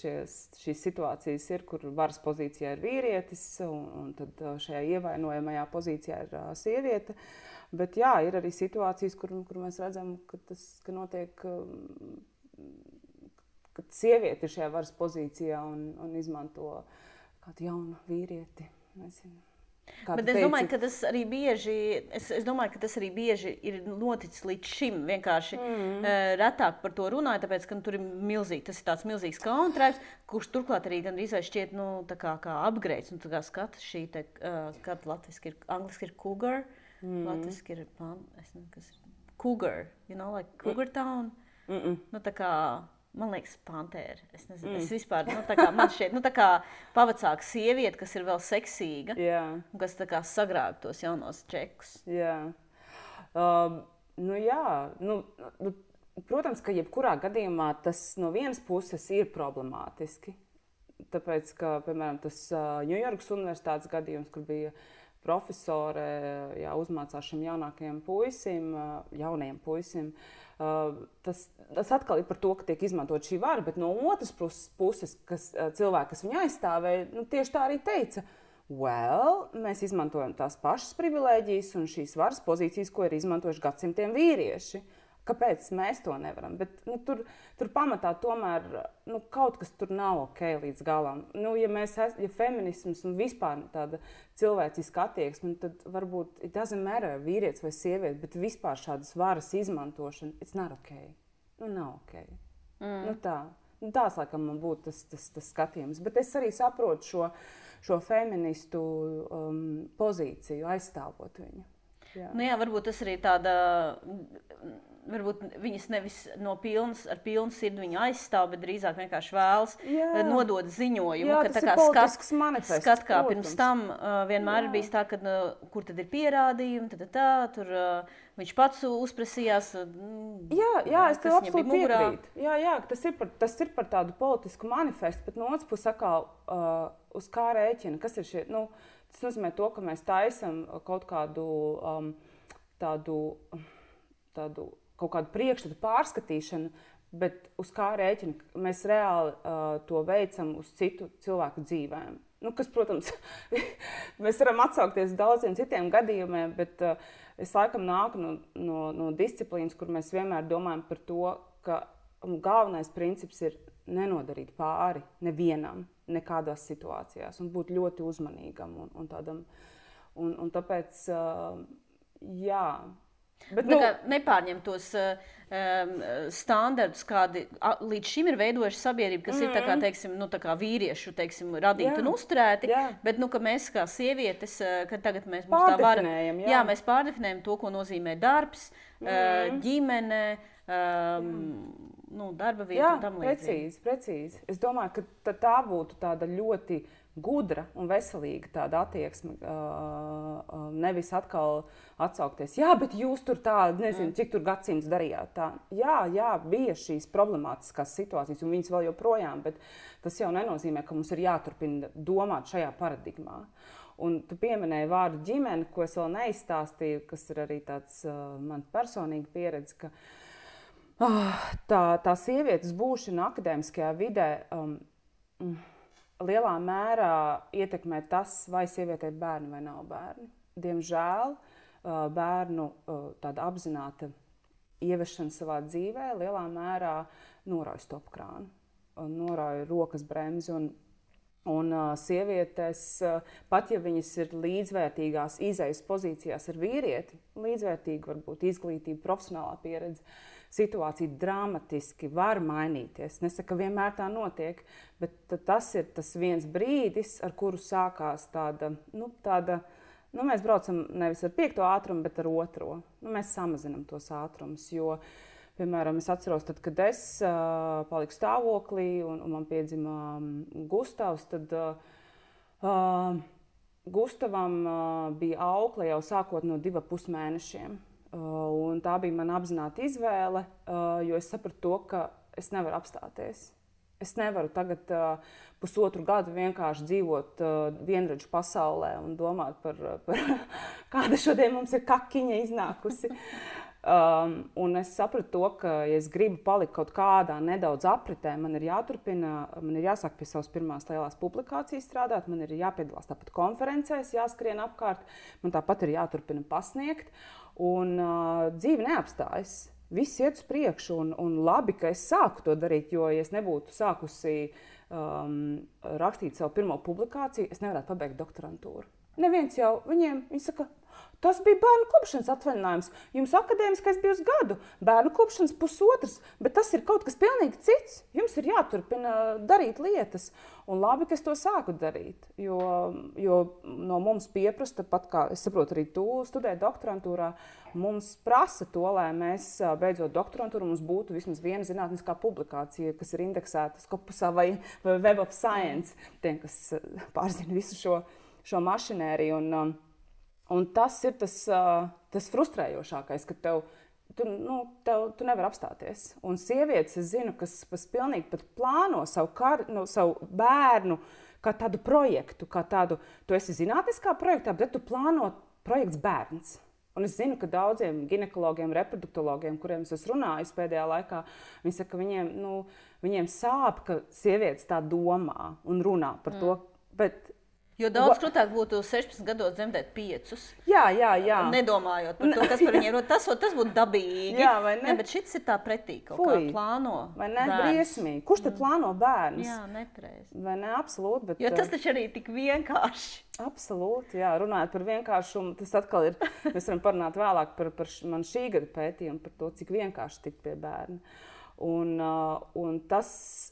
šīs situācijas ir, kur varas pozīcijā ir vīrietis, un tad šajā ievainojamajā pozīcijā ir sieviete. Bet jā, ir arī situācijas, kur mēs redzam, ka notiek, ka sieviete ir šajā varas pozīcijā un izmanto kādu jaunu vīrieti. Nezinu. Bet es domāju, ka tas arī bieži ir noticis līdz šim. Vienkārši retāk par to runāju, tāpēc, ka tur ir milzīgi, tas ir tāds milzīgs kauntraips, kurš turklāt arī gandrīz vai šķiet, kā upgrades. Un tā kā skata šī, kad latviski ir, angliski ir cougar. Latviski ir, es nezinu, kas ir cougar, like cougar town. Nu, tā kā, man liekas, pantēra. Es nezinu, es vispār, tā kā man šķiet, tā kā pavacāka sieviete, kas ir vēl seksīga, un kas tā kā sagrāb tos jaunos čekus. Jā. Protams, ka jebkurā gadījumā tas no vienas puses ir problemātiski. Tāpēc, ka, piemēram, tas Ņujorkas universitātes gadījums, kur bija profesore uzmācās šim jaunajiem puisim, tas atkal ir par to, ka tiek izmantot šī vara, bet no otras puses, cilvēki, kas viņu aizstāvēja, tieši tā arī teica, mēs izmantojam tās pašas privilēģijas un šīs varas pozīcijas, ko ir izmantojuši gadsimtiem vīrieši. Kāpēc mēs to nevaram? Bet tur pamatā tomēr kaut kas tur nav ok līdz galam. Ja feminisms un vispār tāda cilvēciska attieksme, tad varbūt it doesn't matter vīrietis vai sieviete, bet vispār šādas varas izmantošana, it's not ok. Nav ok. Tās, laikam, man būtu tas skatījums. Bet es arī saprotu šo feministu pozīciju, aizstāvot viņu. Jā, varbūt tas arī tāda... Varbūt viņas nevis ar pilnu sirdi viņu aizstāv, bet drīzāk vienkārši vēlas nodot ziņojumu. Tas ir politisks manifests. Skat kā pirms tam vienmēr ir bijis tā, ka kur tad ir pierādījumi, tur viņš pats uzprasījās. Jā, es tev absolūti piekrītu. Jā, tas ir par tādu politisku manifestu, bet no otras puses atkal uz kā rēķina. Kas ir šie? Tas nozīmē to, ka mēs taisam kaut kādu kaut kādu priekšstatu pārskatīšanu, bet uz kā rēķina mēs reāli to veicam uz citu cilvēku dzīvēm. Kas, protams, mēs varam atsaukties daudziem citiem gadījumiem, bet es laikam nāku no disciplīnas, kur mēs vienmēr domājam par to, ka galvenais princips ir nenodarīt pāri nevienam, nekādās situācijās, un būt ļoti uzmanīgam un tādam. Un tāpēc, jā. Bet, nepārņem tos standartus, kādi līdz šim ir veidojuši sabiedrību, kas ir tā kā, teiksim, tā kā vīriešu, teiksim, radīti un uzturēti, bet, ka mēs kā sievietes, kad tagad mēs mums tā vara, mēs pārdefinējam to, ko nozīmē darbs, ģimene, darba vieta un tam līdzīgi. Precīzi. Es domāju, ka tā būtu tāda ļoti gudra un veselīga tāda attieksme, nevis atkal atsaukties. Jā, bet jūs tur nezinu, cik tur gadsimts darījāt tā. Jā, bija šīs problemātiskās situācijas, un viņas vēl joprojām, bet tas jau nenozīmē, ka mums ir jāturpina domāt šajā paradigmā. Un tu pieminēji vārdu ģimene, ko es vēl neizstāstīju, kas ir arī tāds man personīga pieredze, ka tā sievietes būšana akadēmiskajā vidē lielā mērā ietekmē tas, vai sievietei ir bērni vai nav bērni. Diemžēl bērnu tāda apzināta ieviešana savā dzīvē lielā mērā norauj stopkrānu, norauj rokas bremzi un sievietes, pat ja viņas ir līdzvērtīgās izejas pozīcijās ar vīrieti, līdzvērtīga varbūt izglītība, profesionālā pieredze, situācija dramatiski var mainīties. Nesaku, ka vienmēr tā notiek, bet tas ir tas viens brīdis, ar kuru sākās tāda, mēs braucam nevis ar 5. ātrumu, bet ar 2. Mēs samazinam tos ātrumus, jo, piemēram, es atceros, tad, kad es paliku stāvoklī un man piedzima Gustavs, tad Gustavam bija aukle jau sākot no 2,5 mēnešiem. Un tā bija mana apzināta izvēle, jo es sapratu to, ka es nevaru apstāties. Es nevaru tagad pusotru gadu vienkārši dzīvot vienradžu pasaulē un domāt par kāda šodien mums ir kakiņa iznākusi. Un es sapratu to, ka, ja es gribu palikt kaut kādā nedaudz apritē, man ir jāturpina, man ir jāsāk pie savas pirmās lielās publikācijas strādāt, man ir jāpiedalās tāpat konferencēs, jāskrien apkārt, man tāpat ir jāturpina pasniegt, un dzīve neapstājas. Viss iet uz priekšu, un labi, ka es sāku to darīt, jo, ja es nebūtu sākusi rakstīt savu pirmo publikāciju, es nevarētu pabeigt doktorantūru. Neviens jau viņi saka, tas bija bērnu kopšanas atvaļinājums. Jums akadēmiskais bija uz gadu, bērnu kopšanas pusotras, bet tas ir kaut kas pilnīgi cits. Jums ir jāturpina darīt lietas. Un labi, ka es to sāku darīt, jo no mums pieprasa, pat kā es saprotu, arī tu studē doktorantūrā, mums prasa to, lai mēs beidzot doktorantūru, mums būtu vismaz viena zinātniskā publikācija, kas ir indeksēta Scopusā vai Web of Science, tiem, kas pārzina visu šo mašinēriju. Un tas ir tas frustrējošākais, ka tu nevari apstāties. Un sievietes, es zinu, kas pilnīgi pat plāno savu bērnu kā tādu projektu, kā tādu, tu esi zinātniskā projektā, bet tu plāno projekts bērns. Un es zinu, ka daudziem ginekologiem, reproduktologiem, kuriem es esmu runājis pēdējā laikā, viņi saka, ka viņiem sāp, ka sievietes tā domā un runā par to, bet jo daudz krūtāk būtu 16 gados dzemdēt 5. Jā. Nedomājot par to, kas par viņiem ir. Tas būtu dabīgi. Jā, vai ne? Ne, bet šits ir tā pretī kaut kā plāno. Vai ne? Briesmīgi. Kurš tad plāno bērnus? Jā, nepareizi. Vai ne? Absolūti. Bet, jo tas taču arī tik vienkārši. Absolūti, jā. Runājot par vienkāršumu, tas atkal ir, mēs varam parunāt vēlāk par man šī gada pētījumu, par to, cik vienkārši tikt pie bērna. Un tas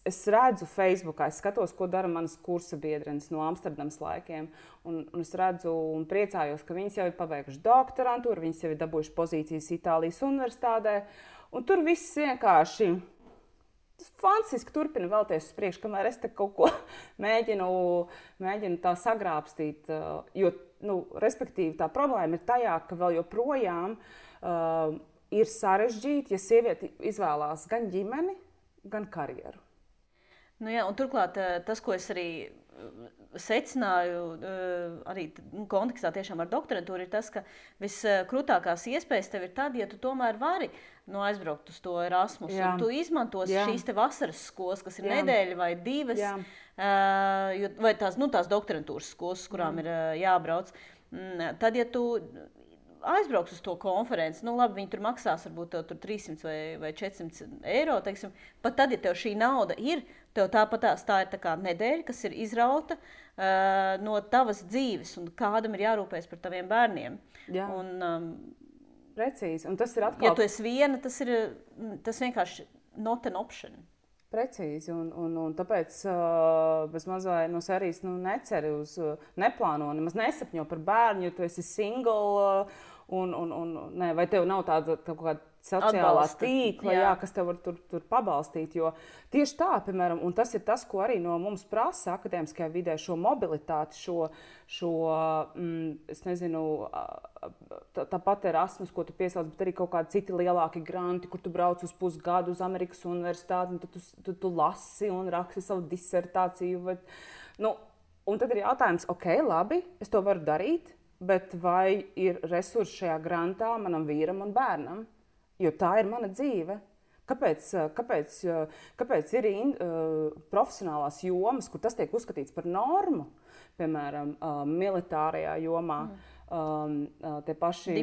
es redzu Facebookā, es skatos, ko dara manas kursa biedrenes no Amsterdamas laikiem. Un es redzu un priecājos, ka viņas jau ir pabeiguši doktorantūru, viņas jau ir dabūjuši pozīcijas Itālijas universitātē. Un tur viss vienkārši fantastiski turpina vēlties uz priekšu, kamēr es te kaut ko mēģinu tā sagrābstīt. Jo, respektīvi, tā problēma ir tajā, ka vēl joprojām ir sarežģīti, ja sieviete izvēlās gan ģimeni, gan karjeru. Jā, un turklāt tas, ko es arī secināju, arī kontekstā tiešām ar doktorantūru, ir tas, ka viskrūtākās iespējas tev ir tad, ja tu tomēr vari aizbraukt uz to Erasmus, un tu izmantos šīs te vasaras skolas, kas ir nedēļa vai 2, vai tās doktorantūras skolas, kurām ir jābrauc. Tad, ja tu aizbrauks uz to konferenci, labi, viņi tur maksās varbūt tur 300 vai 400 eiro, teiksim, pat tad, ja tev šī nauda ir, tev tā ir tā kā nedēļa, kas ir izrauta no tavas dzīves, un kādam ir jārūpējas par taviem bērniem. Jā. Precīzi, un tas ir atkal... Ja tu esi viena, tas vienkārši not an option. Precīzi, un tāpēc bez mazai no sērijas neceri uz, neplāno, nemaz nesapņo par bērnu, jo tu esi single, vai tev nav tāda kaut kāda sociālā tīkla, kas tev var tur pabalstīt, jo tieši tā, piemēram, un tas ir tas, ko arī no mums prasa akadēmiskajā vidē, šo mobilitāti, es nezinu, tāpat Erasmus, ko tu piesauc, bet arī kaut kādi citi lielāki granti, kur tu brauc uz pusgadu uz Amerikas universitāti, un tad tu lasi un raksti savu disertāciju. Un tad ir jautājums, labi, es to varu darīt, bet vai ir resursi šajā grantā manam vīram un bērnam? Jo tā ir mana dzīve. Kāpēc ir profesionālās jomas, kur tas tiek uzskatīts par normu, piemēram, militārajā jomā, tie paši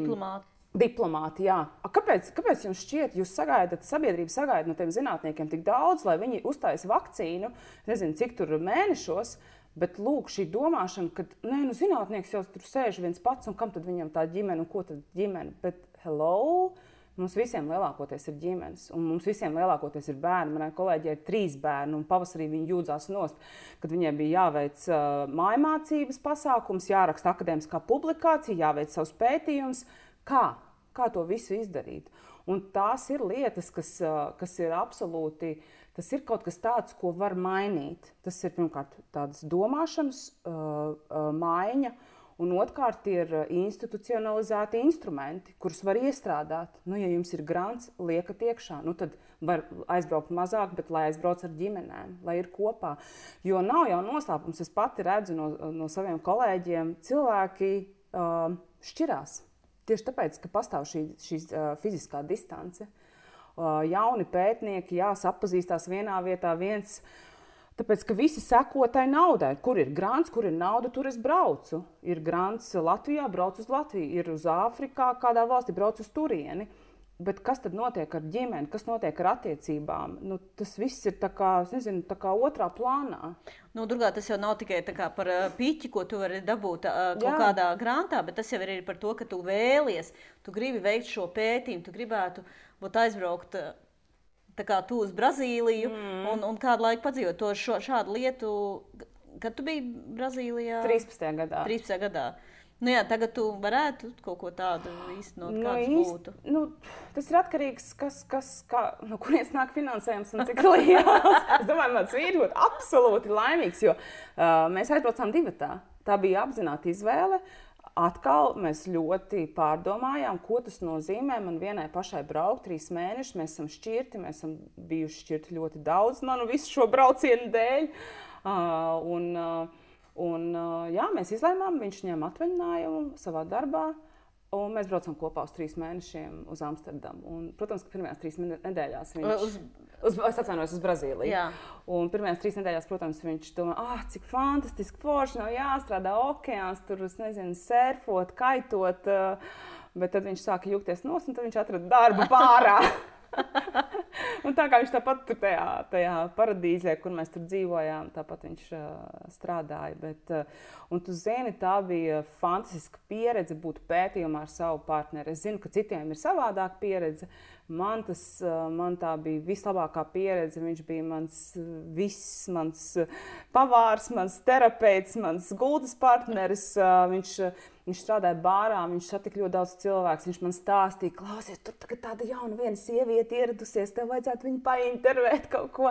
diplomāti, jā. Kāpēc jums šķiet, sabiedrība sagaida no tiem zinātniekiem tik daudz, lai viņi uztaisa vakcīnu, nezinu, cik tur mēnešos, bet lūk, šī domāšana, ka zinātnieks jau tur sēž viens pats, un kam tad viņam tā ģimene, un ko tad ģimene? Bet hello! Mums visiem lielākoties ir ģimenes, un mums visiem lielākoties ir bērni. Manai kolēģei ir 3 bērni, un pavasarī viņi jūdzās nost, kad viņai bija jāveic mājmācības pasākums, jāraksta akadēmiskā publikācija, jāveic savs pētījums. Kā to visu izdarīt? Un tās ir lietas, kas ir absolūti, tas ir kaut kas tāds, ko var mainīt. Tas ir pirmkārt tādas domāšanas maiņa, Un otrkārt ir institucionalizēti instrumenti, kurus var iestrādāt. Nu, ja jums ir grants, liekat iekšā, nu, tad var aizbraukt mazāk, bet lai aizbrauc ar ģimenēm, lai ir kopā. Jo nav jau noslēpums, es pati redzu no saviem kolēģiem, cilvēki šķirās. Tieši tāpēc, ka pastāv šī fiziskā distance. Jauni pētnieki, sapazīstās vienā vietā, tāpēc, ka visi seko tai naudai. Kur ir grants, kur ir nauda, tur es braucu. Ir grants Latvijā, braucu uz Latviju. Ir uz Āfrikā, kādā valstī, braucu uz turieni. Bet kas tad notiek ar ģimeni, kas notiek ar attiecībām? Nu, tas viss ir tā kā, nezinu, tā kā otrā plānā. Nu, Durgā, tas jau nav tikai tā kā par piķi, ko tu vari dabūt kaut kādā grāmatā, bet tas jau ir par to, ka tu vēlies, tu gribi veikt šo pētījumu, tu gribētu būt aizbraukt tā kā tu uz Brazīliju un kādu laiku padzīvot to šādu lietu. Kad tu biji Brazīlijā? 13. gadā. 13. gadā. Nu jā, tagad tu varētu kaut ko tādu īstenot, kāds būtu. Nu, tas ir atkarīgs, no kurienes nāk finansējums un cik liels. Es domāju, mans vīrs būtu absolūti laimīgs, jo mēs aizbraucām divatā. Tā bija apzināta izvēle. Atkal mēs ļoti pārdomājām, ko tas nozīmē man vienai pašai braukt 3 mēnešus. Mēs esam šķirti, mēs esam bijuši šķirti ļoti daudz manu visu šo braucienu dēļ. Mēs izlēmām, viņš ņem atvaļinājumu savā darbā, un mēs braucam kopā uz 3 mēnešiem uz Amsterdamu. Un, protams, ka pirmajās 3 nedēļās viņš... Es atvainojos uz Brazīliju. Jā. Un pirmajās 3 nedēļās, protams, viņš domā, cik fantastiski forši, nav jāstrādā okeāns, tur, nezinu, surfot, kaitot, bet tad viņš sāka jūgties nos, un tad viņš atrada darbu pārā. Un tā kā viņš tāpat tur tajā paradīzē, kur mēs tur dzīvojām, tāpat viņš strādāja. Un tu zini, tā bija fantastiska pieredze būt pētījumā ar savu partneri. Es zinu, ka citiem ir savādāka pieredze. Man tā bija vislabākā pieredze. Viņš bija mans pavārs, mans terapeits, mans gultas partneris. Viņš strādāja bārā, viņš satika ļoti daudz cilvēku. Viņš man stāstīja, klausies, tur tagad tāda jauna viena sieviete ieradusies, tev vajadzētu viņu paintervēt kaut ko.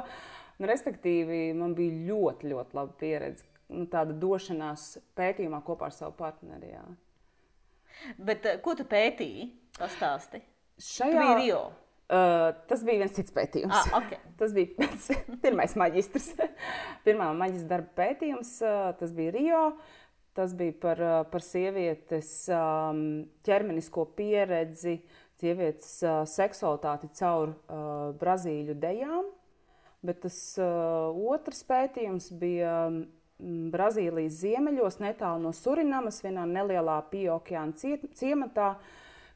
Respektīvi, man bija ļoti, ļoti laba pieredze. Tāda došanās pētījumā kopā ar savu partneri. Jā. Bet ko tu pētīji? Pastāsti. Tu biji Rio? Tas bija viens cits pētījums. Okay. Tas bija pirmais maģistrs. Pirmā maģistra darba pētījums, tas bija Rio. Tas bija par sievietes ķermenisko pieredzi, sievietes seksualitāti caur brazīļu dejām. Bet tas otrs pētījums bija Brazīlijas ziemeļos, netālu no Surinamas, vienā nelielā Pieokeāna ciematā,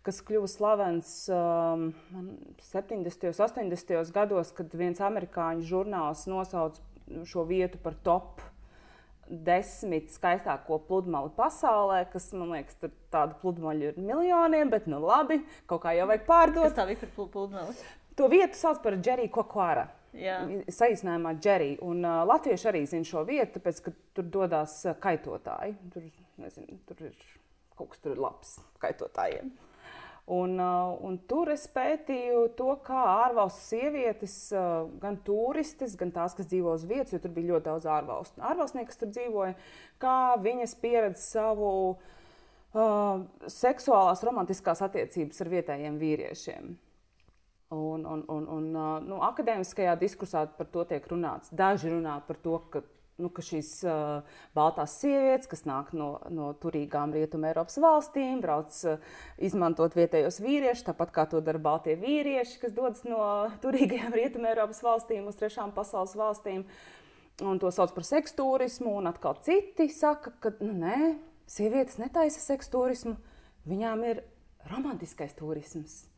kas kļuva slavens 70. un 80. gados, kad viens amerikāņu žurnāls nosauca šo vietu par top 10 skaistāko pludmali pasaulē, kas, man liekas, tur tādu pludmaļu ir miljoniem, bet nu labi, kaut kā jau vajag pārdot. Kas tā bija par pludmali? To vietu sauc par Jericoacoara. Saīsinājumā Jerry. Un latvieši arī zina šo vietu, tāpēc, ka tur dodās kaitotāji. Tur ir kaut kas tur labs kaitotājiem. Un tur es pētīju to, kā ārvalstu sievietes, gan turistes, gan tās, kas dzīvo uz vietas, jo tur bija ļoti daudz ārvalstnieku, kas tur dzīvoja, kā viņas pieredz savu seksuālās romantiskās attiecības ar vietējiem vīriešiem. Akadēmiskajā diskursā par to tiek runāts. Daži runā par to, ka šīs baltās sievietes, kas nāk no turīgām Rietuma Eiropas valstīm, brauc izmantot vietējos vīriešus, tāpat kā to dara baltie vīrieši, kas dodas no turīgajām Rietuma Eiropas valstīm uz trešām pasaules valstīm. Un to sauc par seksturismu, un atkal citi saka, ka nē, sievietes netaisa seksturismu, viņām ir romantiskais turisms.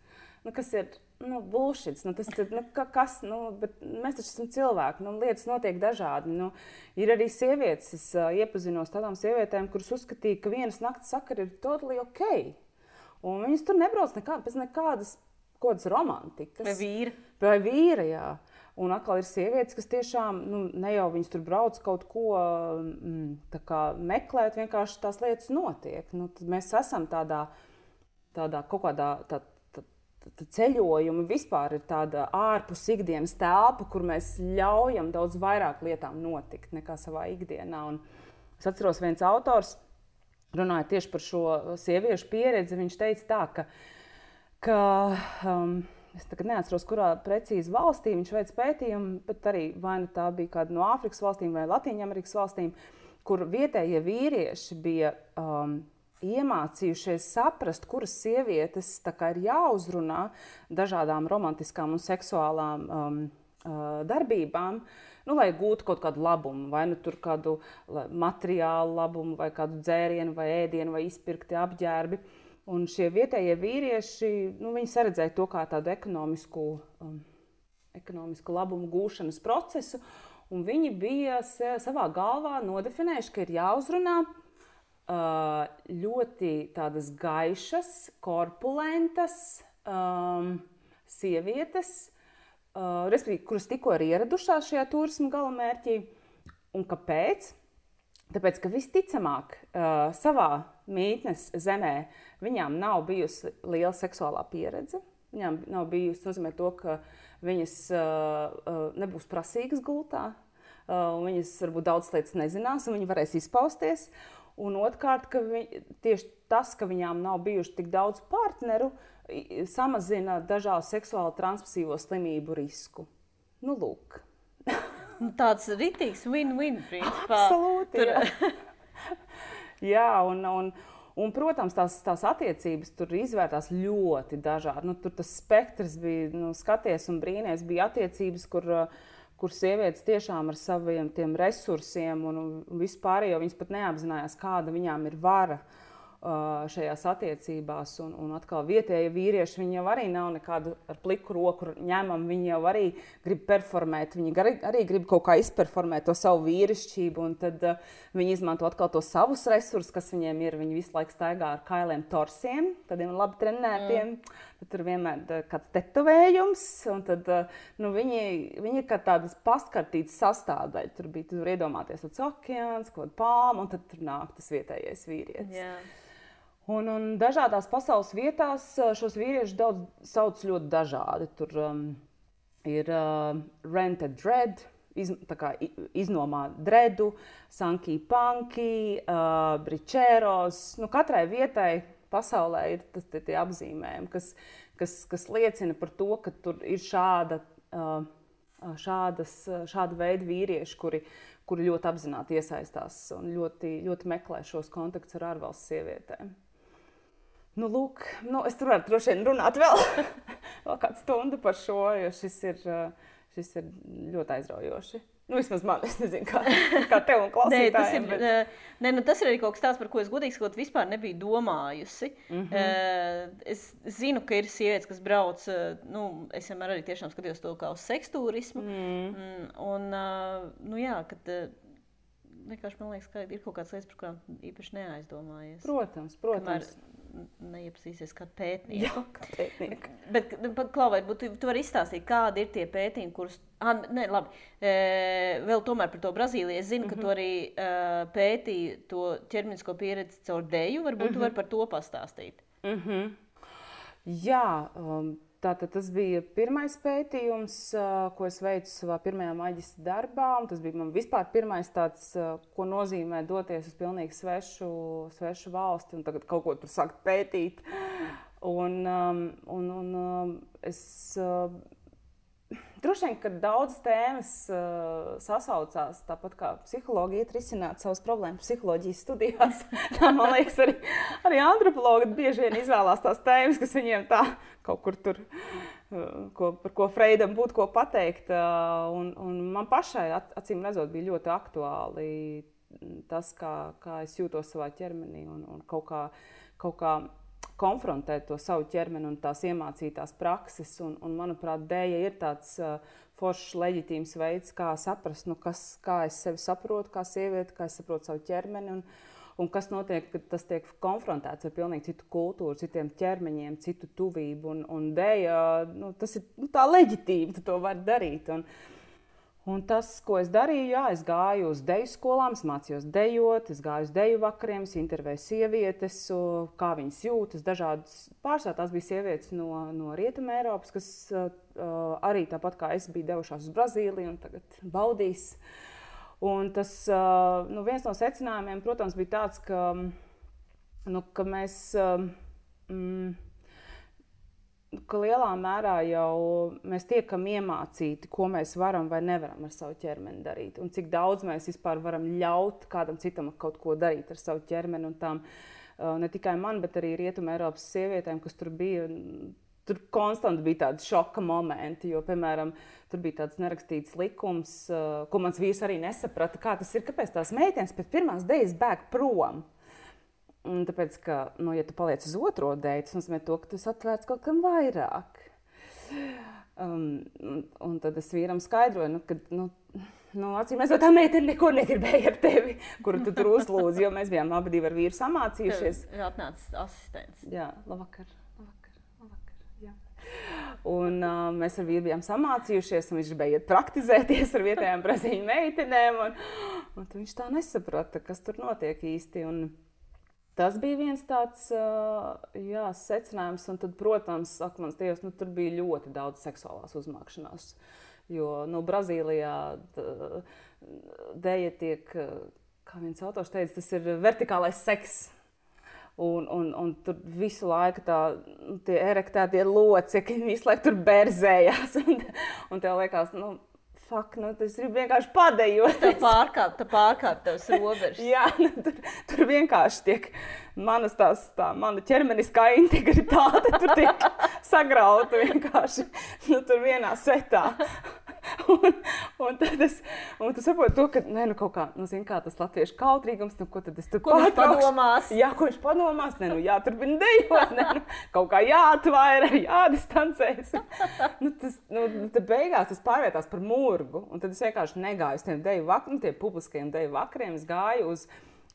Kas ir bullshit, bet mēs taču esam cilvēki, lietas notiek dažādi. Ir arī sievietes, es iepazinos tādām sievietēm, kuras uzskatīja, ka vienas nakts sakari ir totally ok. Un viņas tur nebrauc bez nekādas romantikas. Vai vīra, jā. Un atkal ir sievietes, kas tiešām, ne jau viņas tur brauc kaut ko meklēt, vienkārši tās lietas notiek. Tad mēs esam tādā kaut kādā ceļojumi vispār ir tāda ārpus ikdienas telpa, kur mēs ļaujam daudz vairāk lietām notikt nekā savā ikdienā. Un es atceros viens autors, runāja tieši par šo sieviešu pieredzi, viņš teica tā, ka es tagad neatceros, kurā precīzi valstī viņš veic pētījumu, bet arī vai nu tā bija kāda no Āfrikas valstīm vai Latīņamerikas valstīm, kur vietējie vīrieši bija iemācījušies saprast, kuras sievietes tā kā ir jāuzrunā dažādām romantiskām un seksuālām darbībām, lai gūtu kaut kādu labumu, vai nu tur kādu materiālu labumu, vai kādu dzērienu, vai ēdienu, vai izpirkti apģērbi. Un šie vietējie vīrieši, viņi saredzēja to kā tādu ekonomisku labumu gūšanas procesu, un viņi bija savā galvā nodefinējuši, ka ir jāuzrunā ļoti tādas gaišas, korpulentas sievietes, respektīvi, kuras tikko ir ieradušās šajā turisma galamērķī. Un kāpēc? Tāpēc, ka visticamāk savā mītnes zemē viņām nav bijusi liela seksuālā pieredze. Viņām nav bijusi nozīmē to, ka viņas nebūs prasīgas gultā, viņas varbūt daudz lietas nezinās, un viņi varēs izpausties. Un otrkārt, ka tieši tas, ka viņām nav bijuši tik daudz partneru, samazina dažādu seksuāli transmisīvo slimību risku. Lūk. Tāds ritīgs win-win principā. Absolūti, jā. Un, protams, tās attiecības tur izvērtās ļoti dažādi. Tur tas spektrs bija, skaties un brīnies, bija attiecības, kur sievietes tiešām ar saviem tiem resursiem un vispārējo viņas pat neapzinājās, kāda viņām ir vara šajās attiecībās. Un atkal vietējie vīrieši, viņi jau arī nav nekādu ar pliku roku ņemam, viņi jau arī grib performēt, viņi arī grib kaut kā izperformēt to savu vīrišķību, un tad viņi izmanto atkal to savus resursus, kas viņiem ir. Viņi visu laiku staigā ar kailiem torsiem, tādiem labi trenētiem, tad tur vienmēr kāds tetovējums, un tad viņi ir kā tādas paskartītas sastāvdaļa. Tur bija, tur iedomāties tāds okeāns, kaut kāda palma, un tad tur nāk tas vietējais vīrietis. Yeah. Un dažādās pasaules vietās šos vīriešus daudz sauc ļoti dažādi. Tur ir rented dread, iznomā dredu, sanky punky, bričēros. Katrai vietai pasaulē ir tie apzīmējumi, kas liecina par to, ka tur ir šāda veida vīrieši, kuri ļoti apzināti iesaistās un ļoti, ļoti meklē šos kontaktus ar ārvalstu sievietēm. Lūk, es tur varu droši vien runāt vēl kādu stundu par šo, jo šis ir ļoti aizraujoši. Vismaz man, es nezinu, kā tev un klausītājiem. Tas ir arī kaut kas tāds, par ko es godīgi sakot vispār nebiju domājusi. Es zinu, ka ir sievietes, kas brauc, es vienmēr arī tiešām skatījos to kā uz seksturismu. Kad vienkārši man liekas, ka ir kaut kādas lietas, par kurām īpaši neaizdomājies. Protams. Kamēr neiepazīsies kādu pētnieku. Jā, kā pētnieku. Bet, Klau, varbūt tu vari izstāstīt, kādi ir tie pētījumi, kurus... Vēl tomēr par to Brazīliju. Es zinu, ka tu arī pētīji to ķermenisko pieredzi caur deju. Varbūt tu vari par to pastāstīt. Jā, tātad tas bija pirmais pētījums, ko es veicu savā pirmajā maģistra darbā. Un tas bija man vispār pirmais tāds, ko nozīmē doties uz pilnīgi svešu valsti un tagad kaut ko tur sākt pētīt. Es droši vien, ka daudzas tēmas sasaucās, tāpat kā psihologi iet risināt savas problēmas psiholoģijas studijās. Man liekas, arī antropologi bieži vien izvēlās tās tēmas, kas viņiem tā kaut kur tur, par ko Freidam būtu ko pateikt. Un man pašai, acīm redzot, bija ļoti aktuāli tas, kā es jūtos savā ķermenī un kaut kā konfrontēt to savu ķermeni un tās iemācītās prakses. Un manuprāt, dēja ir tāds foršs, leģitīms veids, kā saprast, kā es sevi saprotu, kā sievieti, kā es saprotu savu ķermeni un kas notiek, kad tas tiek konfrontēts ar pilnīgi citu kultūru, citiem ķermeņiem, citu tuvību. Un dēja, tas ir tā leģitīvi, tu to vari darīt. Un tas, ko es darīju, es gāju uz deju skolām, es mācījos dejot, es gāju uz deju vakariem, es intervēju sievietes, kā viņas jūtas, dažādas pārsvarā tās bija sievietes no Rietuma Eiropas, kas arī tāpat kā es biju devušās uz Brazīliju un tagad baudīs. Un tas, viens no secinājumiem, protams, bija tāds, ka ka mēs, ka lielā mērā jau mēs tiekam iemācīti, ko mēs varam vai nevaram ar savu ķermeni darīt. Un cik daudz mēs vispār varam ļaut kādam citam kaut ko darīt ar savu ķermeni. Un tām, ne tikai man, bet arī Rietuma Eiropas sievietēm, kas tur bija, tur konstanti bija tādi šoka momenti, jo, piemēram, tur bija tāds nerakstīts likums, ko mans vīrs arī nesaprata, kā tas ir, kāpēc tās meitenes pēc pirmās dejas bēg prom. Un tāpēc, ka, ja tu paliec uz otro deju, tas nozīmē to, ka tu esi atvērts kaut kam vairāk. Un tad es vīram skaidroju, ka, acīm redzot, tā meitene neko negribēja ar tevi, kuru tu tur uzlūdzi, jo mēs bijām abi divi ar vīru samācījušies. Ir atnācis asistents. Jā, labvakar. Un mēs ar vīru bijām samācījušies, un viņš gribēja iet praktizēties ar vietējām brazīļu meitenēm. Un viņš tā nesaprata, kas tur notiek īsti. Un tas bija viens tāds secinājums. Un tad, protams, mans Dievs, tur bija ļoti daudz seksuālās uzmākšanās. Jo Brazīlijā deja tiek, kā viens autors teica, tas ir vertikālais seks. Un tur visu laiku tie erektētie locekļi visu laiku tur berzējās. Un tev liekas, tas ir vienkārši padejot. Tā pārkāp tavs robežas. Jā, tur vienkārši tiek mana ķermeniskā integritāte tur tiek sagrauta vienkārši tur vienā setā. Un tu saproti to, ka kaut kā tas latviešu kautrīgums, ko tad es tur pārtraukšu. Ko viņš padomās? Jā, ko viņš padomās? Jāturpina dejot, kaut kā jāatvaira, jādistancēs. Tad beigās tas pārvietās par murgu, un tad es vienkārši negāju uz tiem deju vakariem, tiem publiskajiem deju vakariem, es gāju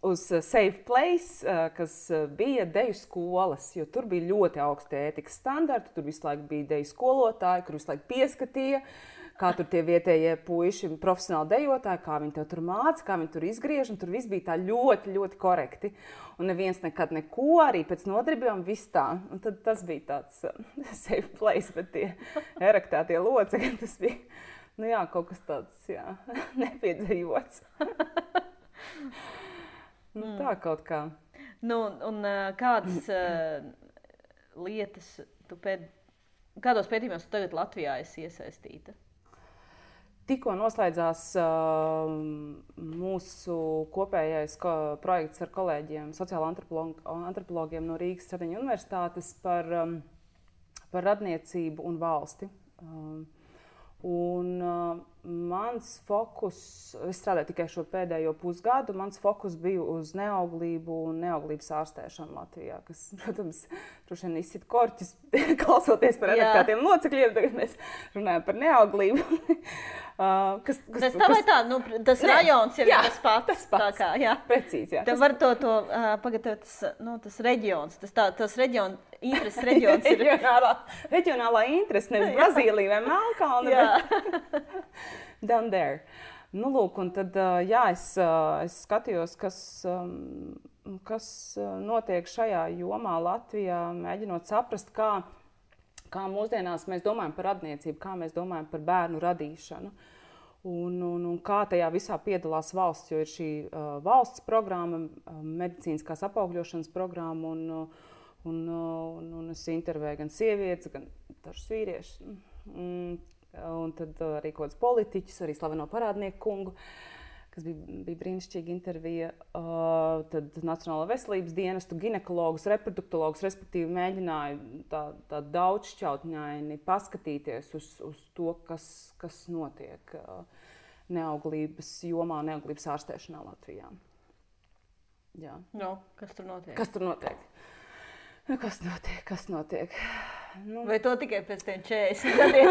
uz Safe Place, kas bija deju skolas, jo tur bija ļoti augsti ētikas standarti, tur visu laiku bija deju skolotāji, kur visu laiku pieskatīja, kā tur tie vietējie puiši, profesionāli dejotāji, kā viņi tev tur māca, kā viņi tur izgriež, un tur viss bija tā ļoti, ļoti korekti. Un neviens nekad neko, arī pēc nodarbībām viss tā. Un tad tas bija tāds safe place, bet tie erektētie locekļi, tas bija, kaut kas tāds, nepiedzīvots. Tā kaut kā. Un kādas lietas kādos pētījumos tu tagad Latvijā esi iesaistīta? Tikko noslēdzās mūsu kopējais projekts ar kolēģiem, sociālo antropologiem no Rīgas Stradiņu universitātes par radniecību un valsti. Un mans fokus, es strādāju tikai šo pēdējo pusgadu, mans fokus bija uz neauglību un neauglības ārstēšanu Latvijā, kas, protams, droši vien izsit korķis, klausoties par erektētiem locekļiem, tagad mēs runājam par neauglību. Tas rajons jau ir tas pats. Precīzi, jā. Tev var pagaidāt, tas reģions, tas intereses reģions ir. Reģionālā interese, nevis Brazīlija vai Melnkalne, bet down there. Lūk, un tad, es skatījos, kas notiek šajā jomā Latvijā, mēģinot saprast, kā mūsdienās mēs domājam par radniecību, kā mēs domājam par bērnu radīšanu. Un kā tajā visā piedalās valsts, jo ir šī valsts programma, medicīniskās apaugļošanas programma, un es intervēju gan sievietes, gan dažus vīriešus, un tad arī kaut kāds politiķus, arī slaveno parādnieku kungu, kas bija brīnišķīga intervija, tad Nacionālā veselības dienestu, ginekologus, reproduktologus, respektīvi mēģināju tā daudzšķautņaini paskatīties uz to, kas notiek neauglības jomā, neauglības ārstēšanā Latvijā. Jā. Kas tur notiek? Kas notiek? Vai to tikai pēc tiem 40 gadiem?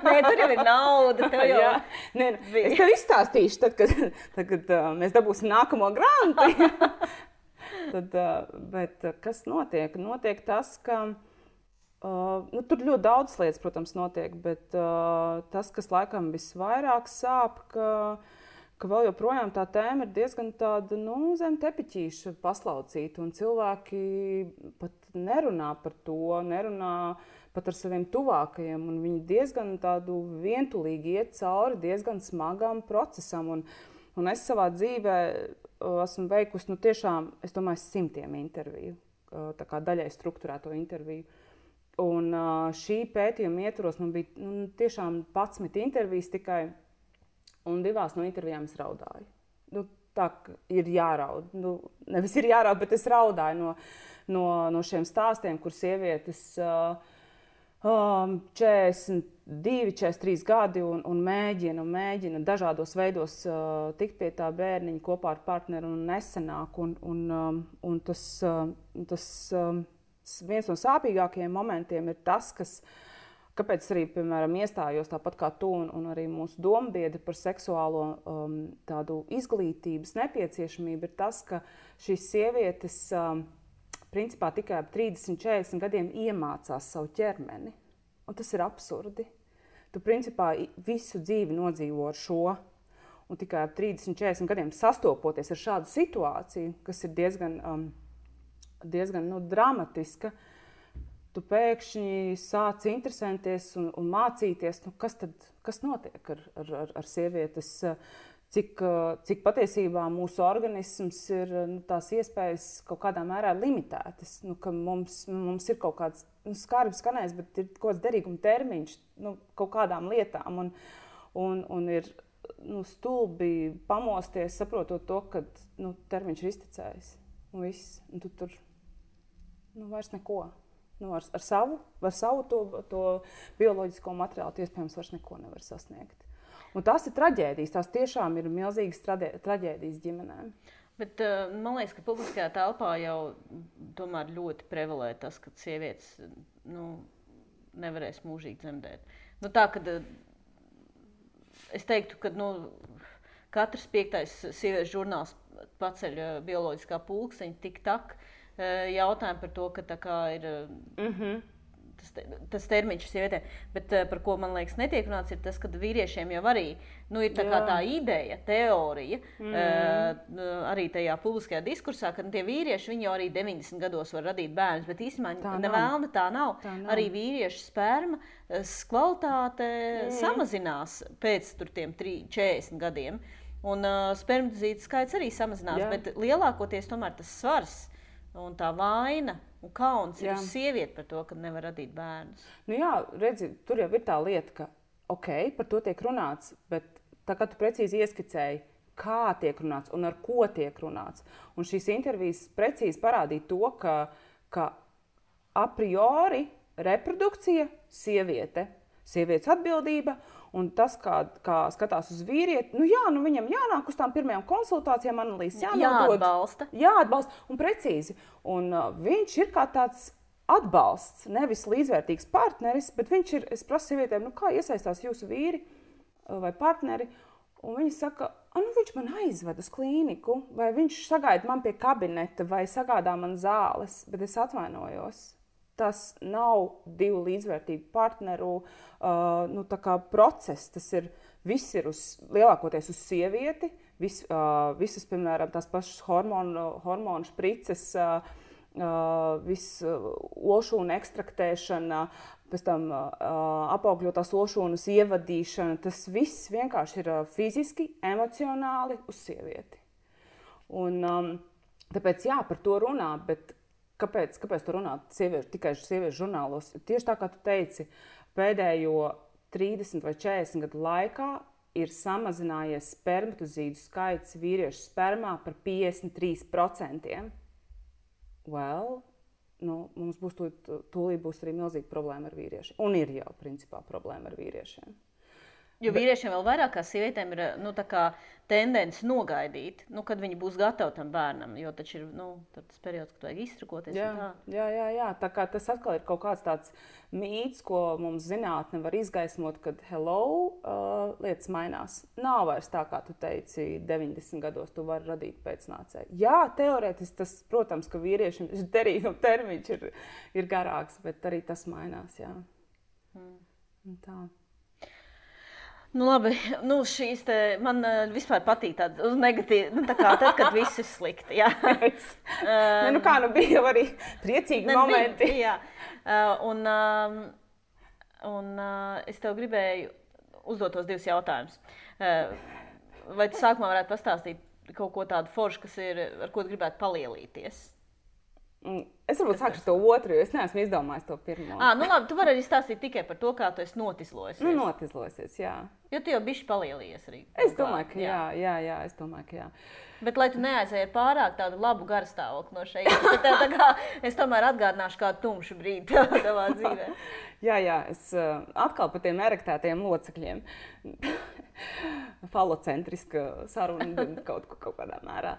Nē, tur jau ir nauda. Es tev izstāstīšu, tad, kad mēs dabūsim nākamo grantu. Bet kas notiek? Notiek tas, ka tur ļoti daudz lietas, protams, notiek, bet tas, kas laikam visvairāk sāp, ka vēl joprojām tā tēma ir diezgan tāda, zem tepiķīša paslaucīta, un cilvēki pat nerunā par to, nerunā pat ar saviem tuvākajiem, un viņi diezgan tādu vientulīgi iet cauri diezgan smagam procesam, un es savā dzīvē esmu veikusi, tiešām, es domāju, 100 interviju, tā kā daļai strukturēto interviju. Un šī pētījuma ietvaros man bija tiešām 11 intervijas tikai, un 2 no intervijām es raudāju. Tā ir jāraud. Nevis ir jāraud, bet es raudāju no šiem stāstiem, kur sievietes 42, 43 gadi un mēģina dažādos veidos tikt pie tā bērniņa kopā ar partneri un nesenāk. Un tas viens no sāpīgākajiem momentiem ir tas, kāpēc arī, piemēram, iestājos tāpat kā tu un arī mūsu dombiedri par seksuālo tādu izglītības nepieciešamību, ir tas, ka šīs sievietes principā tikai ap 30, 40 gadiem iemācās savu ķermeni. Un tas ir absurdi. Tu principā visu dzīvi nodzīvo ar šo, un tikai ap 30, 40 gadiem sastopoties ar šādu situāciju, kas ir diezgan dramatiska, tu pēkšņi sāc interesēties un mācīties, kas notiek ar sievietes, cik patiesībā mūsu organisms ir tās iespējas kaut kādā mērā limitētas, ka mums ir kaut kāds skarbi skanējis, bet ir kaut kāds derīguma termiņš kaut kādām lietām un ir stulbi pamosties, saprotot to, ka termiņš ir iztecējis un viss, un tu tur vairs neko. Ar savu to bioloģisko materiālu iespējams vairs neko nevar sasniegt. Un tās ir traģēdijas, tās tiešām ir milzīgas traģēdijas ģimenēm. Bet man liekas, ka publiskajā telpā jau tomēr ļoti prevalē tas, ka sievietes nevarēs mūžīgi dzemdēt. Tā, kad es teiktu, ka katrs 5. sieviešu žurnāls paceļ bioloģiskā pulksteņa tik tak jautājumu par to, ka tā kā ir tas termiņš sievietēm. Bet par ko, man liekas, netiek runāts, ir tas, ka vīriešiem jau arī ir tā ideja, teorija, arī tajā publiskajā diskursā, ka tie vīrieši, viņi jau arī 90 gados var radīt bērnus, bet īstenībā nevēlna tā nav. Arī vīriešu spermas kvalitāte samazinās pēc tiem 40 gadiem. Un spermatozītu skaits arī samazinās, bet lielākoties tomēr tas svars un tā vaina un kauns ir uz sievieti par to, ka nevar radīt bērnus. Redzi, tur jau ir tā lieta, ka par to tiek runāts, bet tā kā tu precīzi ieskicēji, kā tiek runāts un ar ko tiek runāts. Un šīs intervijas precīzi parādīja to, ka a priori reprodukcija sievietes atbildība, un tas, kā skatās uz vīrieti, viņam jānāk uz tām pirmajām konsultācijām, analīzes jāatbalsta. Jāatbalsta, un precīzi. Un viņš ir kā tāds atbalsts, nevis līdzvērtīgs partneris, bet viņš ir, es prasu sievietēm, kā iesaistās jūsu vīri vai partneri, un viņi saka, viņš man aizved uz klīniku, vai viņš sagaida man pie kabineta, vai sagādā man zāles, bet es atvainojos. Tas nav 2 līdzvērtīgu partneru process. Viss ir lielākoties uz sievieti. Visas, piemēram, tās pašas hormonu šprices, olšūnu ekstraktēšana, pēc tam apaugļotās olšūnas ievadīšana. Tas viss vienkārši ir fiziski, emocionāli uz sievieti. Un tāpēc par to runā, bet Kāpēc tu runā tikai sieviešu žurnālos? Tieši tā, kā tu teici, pēdējo 30 vai 40 gadu laikā ir samazinājies spermatozīdu skaits vīriešu spermā par 53%. Mums tūlīt būs arī milzīga problēma ar vīriešiem. Un ir jau, principā, problēma ar vīriešiem. Jo vīriešiem vēl vairāk kā sievietēm ir tendence nogaidīt, kad viņi būs gatavi tam bērnam, jo taču ir tas periods, kad vajag iztrakoties. Jā. Tā kā tas atkal ir kaut kāds tāds mīts, ko mums zinātne var izgaismot, kad lietas mainās. Nav vairs tā, kā tu teici, 90 gados tu vari radīt pēcnācēju. Jā, teorētiski tas, protams, ka vīriešiem šis derīguma termiņš ir garāks, bet arī tas mainās, jā. Tā. Labi, šīs man vispār patīk tādas uz negatīvi, tad, kad viss ir slikti, jā. Bija jau arī priecīgi momenti. Jā, un es tev gribēju uzdot tos 2 jautājumus. Vai tu sākumā varētu pastāstīt kaut ko tādu foršu, kas ir, ar ko gribētu palielīties? Es varbūt sākšu to otru, jo es neesmu izdomājis to pirmo. Nu labi, tu vari arī stāstīt tikai par to, kā tu esi notizlojusies. Nu, notizlojusies, jā. Jo tu jau bišķi palielījies arī. Es domāju, ka jā, es domāju, ka jā. Bet, lai tu neaizēji pārāk tādu labu garstāvokli no šeit, es tomēr atgādināšu kādu tumšu brīdi tavā dzīvē. Jā, es atkal par tiem erektētajiem locekļiem. Falocentriska saruna kaut kādā mērā.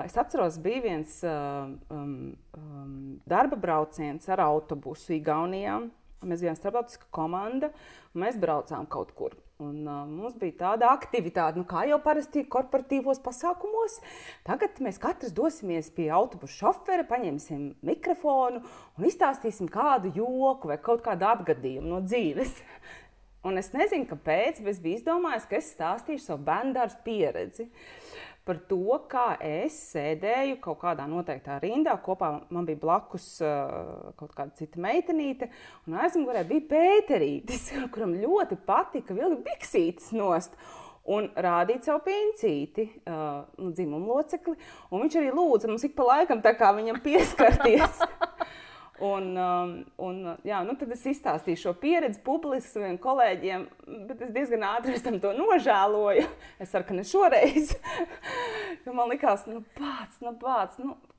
Es atceros, bija viens darba brauciens ar autobusu Igaunijā. Mēs bijām starptautiska komanda, un mēs braucām kaut kur. Un mums bija tāda aktivitāte, kā jau parasti korporatīvos pasākumos. Tagad mēs katrs dosimies pie autobusu šofera, paņemsim mikrofonu un izstāstīsim kādu joku vai kaut kādu atgadījumu no dzīves. Un es nezinu, kāpēc, bet es biju izdomājis, ka es stāstīšu savu bērndārza pieredzi par to, kā es sēdēju kaut kādā noteiktā rindā. Kopā man bija blakus kaut kāda cita meitenīte, un aizmugurē bija Pēterītis, kuram ļoti patika vilkt biksītes nost un rādīt savu pincīti, dzimumu locekli. Un viņš arī lūdza mums ik pa laikam tā kā viņam pieskarties. Tad es izstāstīju šo pieredzi publiski saviem kolēģiem, bet es diezgan ātri tam to nožēloju. Es ceru, ka ne šoreiz. Jo man likās,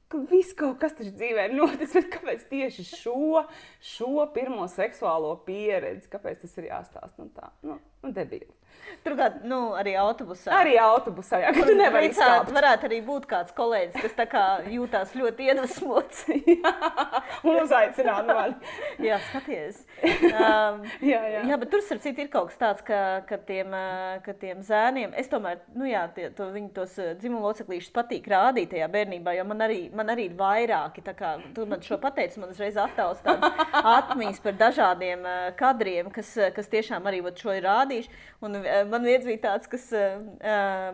ka viss kaut kas taču dzīvē ir noticis, bet kāpēc tieši šo pirmo seksuālo pieredzi, kāpēc tas ir jāstāst? Debīli. Turklāt, arī autobusā. Arī autobusā, jā, ka tu nevari izskāpt. Varētu arī būt kāds kolēģis, kas tā kā jūtās ļoti iedvesmots. Un uzaicināt mani. Jā, skaties. Jā, bet tur, starp citu, ir kaut kas tāds, ka tiem zēniem, es tomēr, viņi tos dzimumu loceklīšus patīk rādīt tajā bērnībā, jo man arī ir vairāki, tā kā tu man šo pateici, man uzreiz attauc tādas atmiņas par dažādiem kadriem, kas tiešām arī šo ir rādījuši. Un man viens bija tāds, kas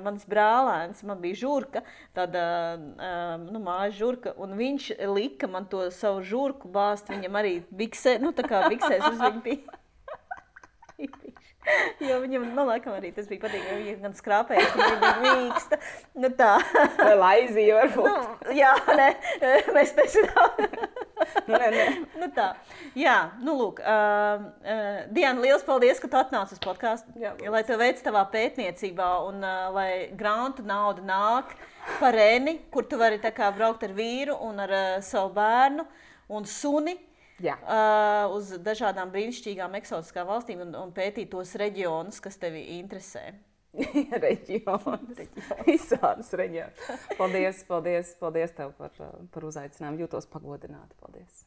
mans brālēns, man bija žurka, tāda mājas žurka, un viņš lika man to savu žurku bāzt, viņam arī biksē, tā kā biksēs uz viņu bija. Jo viņam, laikam arī tas bija patīk, jo viņa gan skrāpēja, ka viņa bija mīksta. Tā. Vai laizīja varbūt? Jā, mēs nezinām. Nē. Tā. Jā, lūk. Diana, liels paldies, ka tu atnāci uz podcastu. Jā, lai tev veic tavā pētniecībā un lai grantu nauda nāk par Reni, kur tu vari tā kā braukt ar vīru un ar savu bērnu un suni. Jā. Uz dažādām brīnišķīgām eksotiskām valstīm un pētīt tos reģionus, kas tevi interesē. Reģionus. Visādus reģionus. Paldies tev par uzaicinājumu. Jūtos pagodināti. Paldies.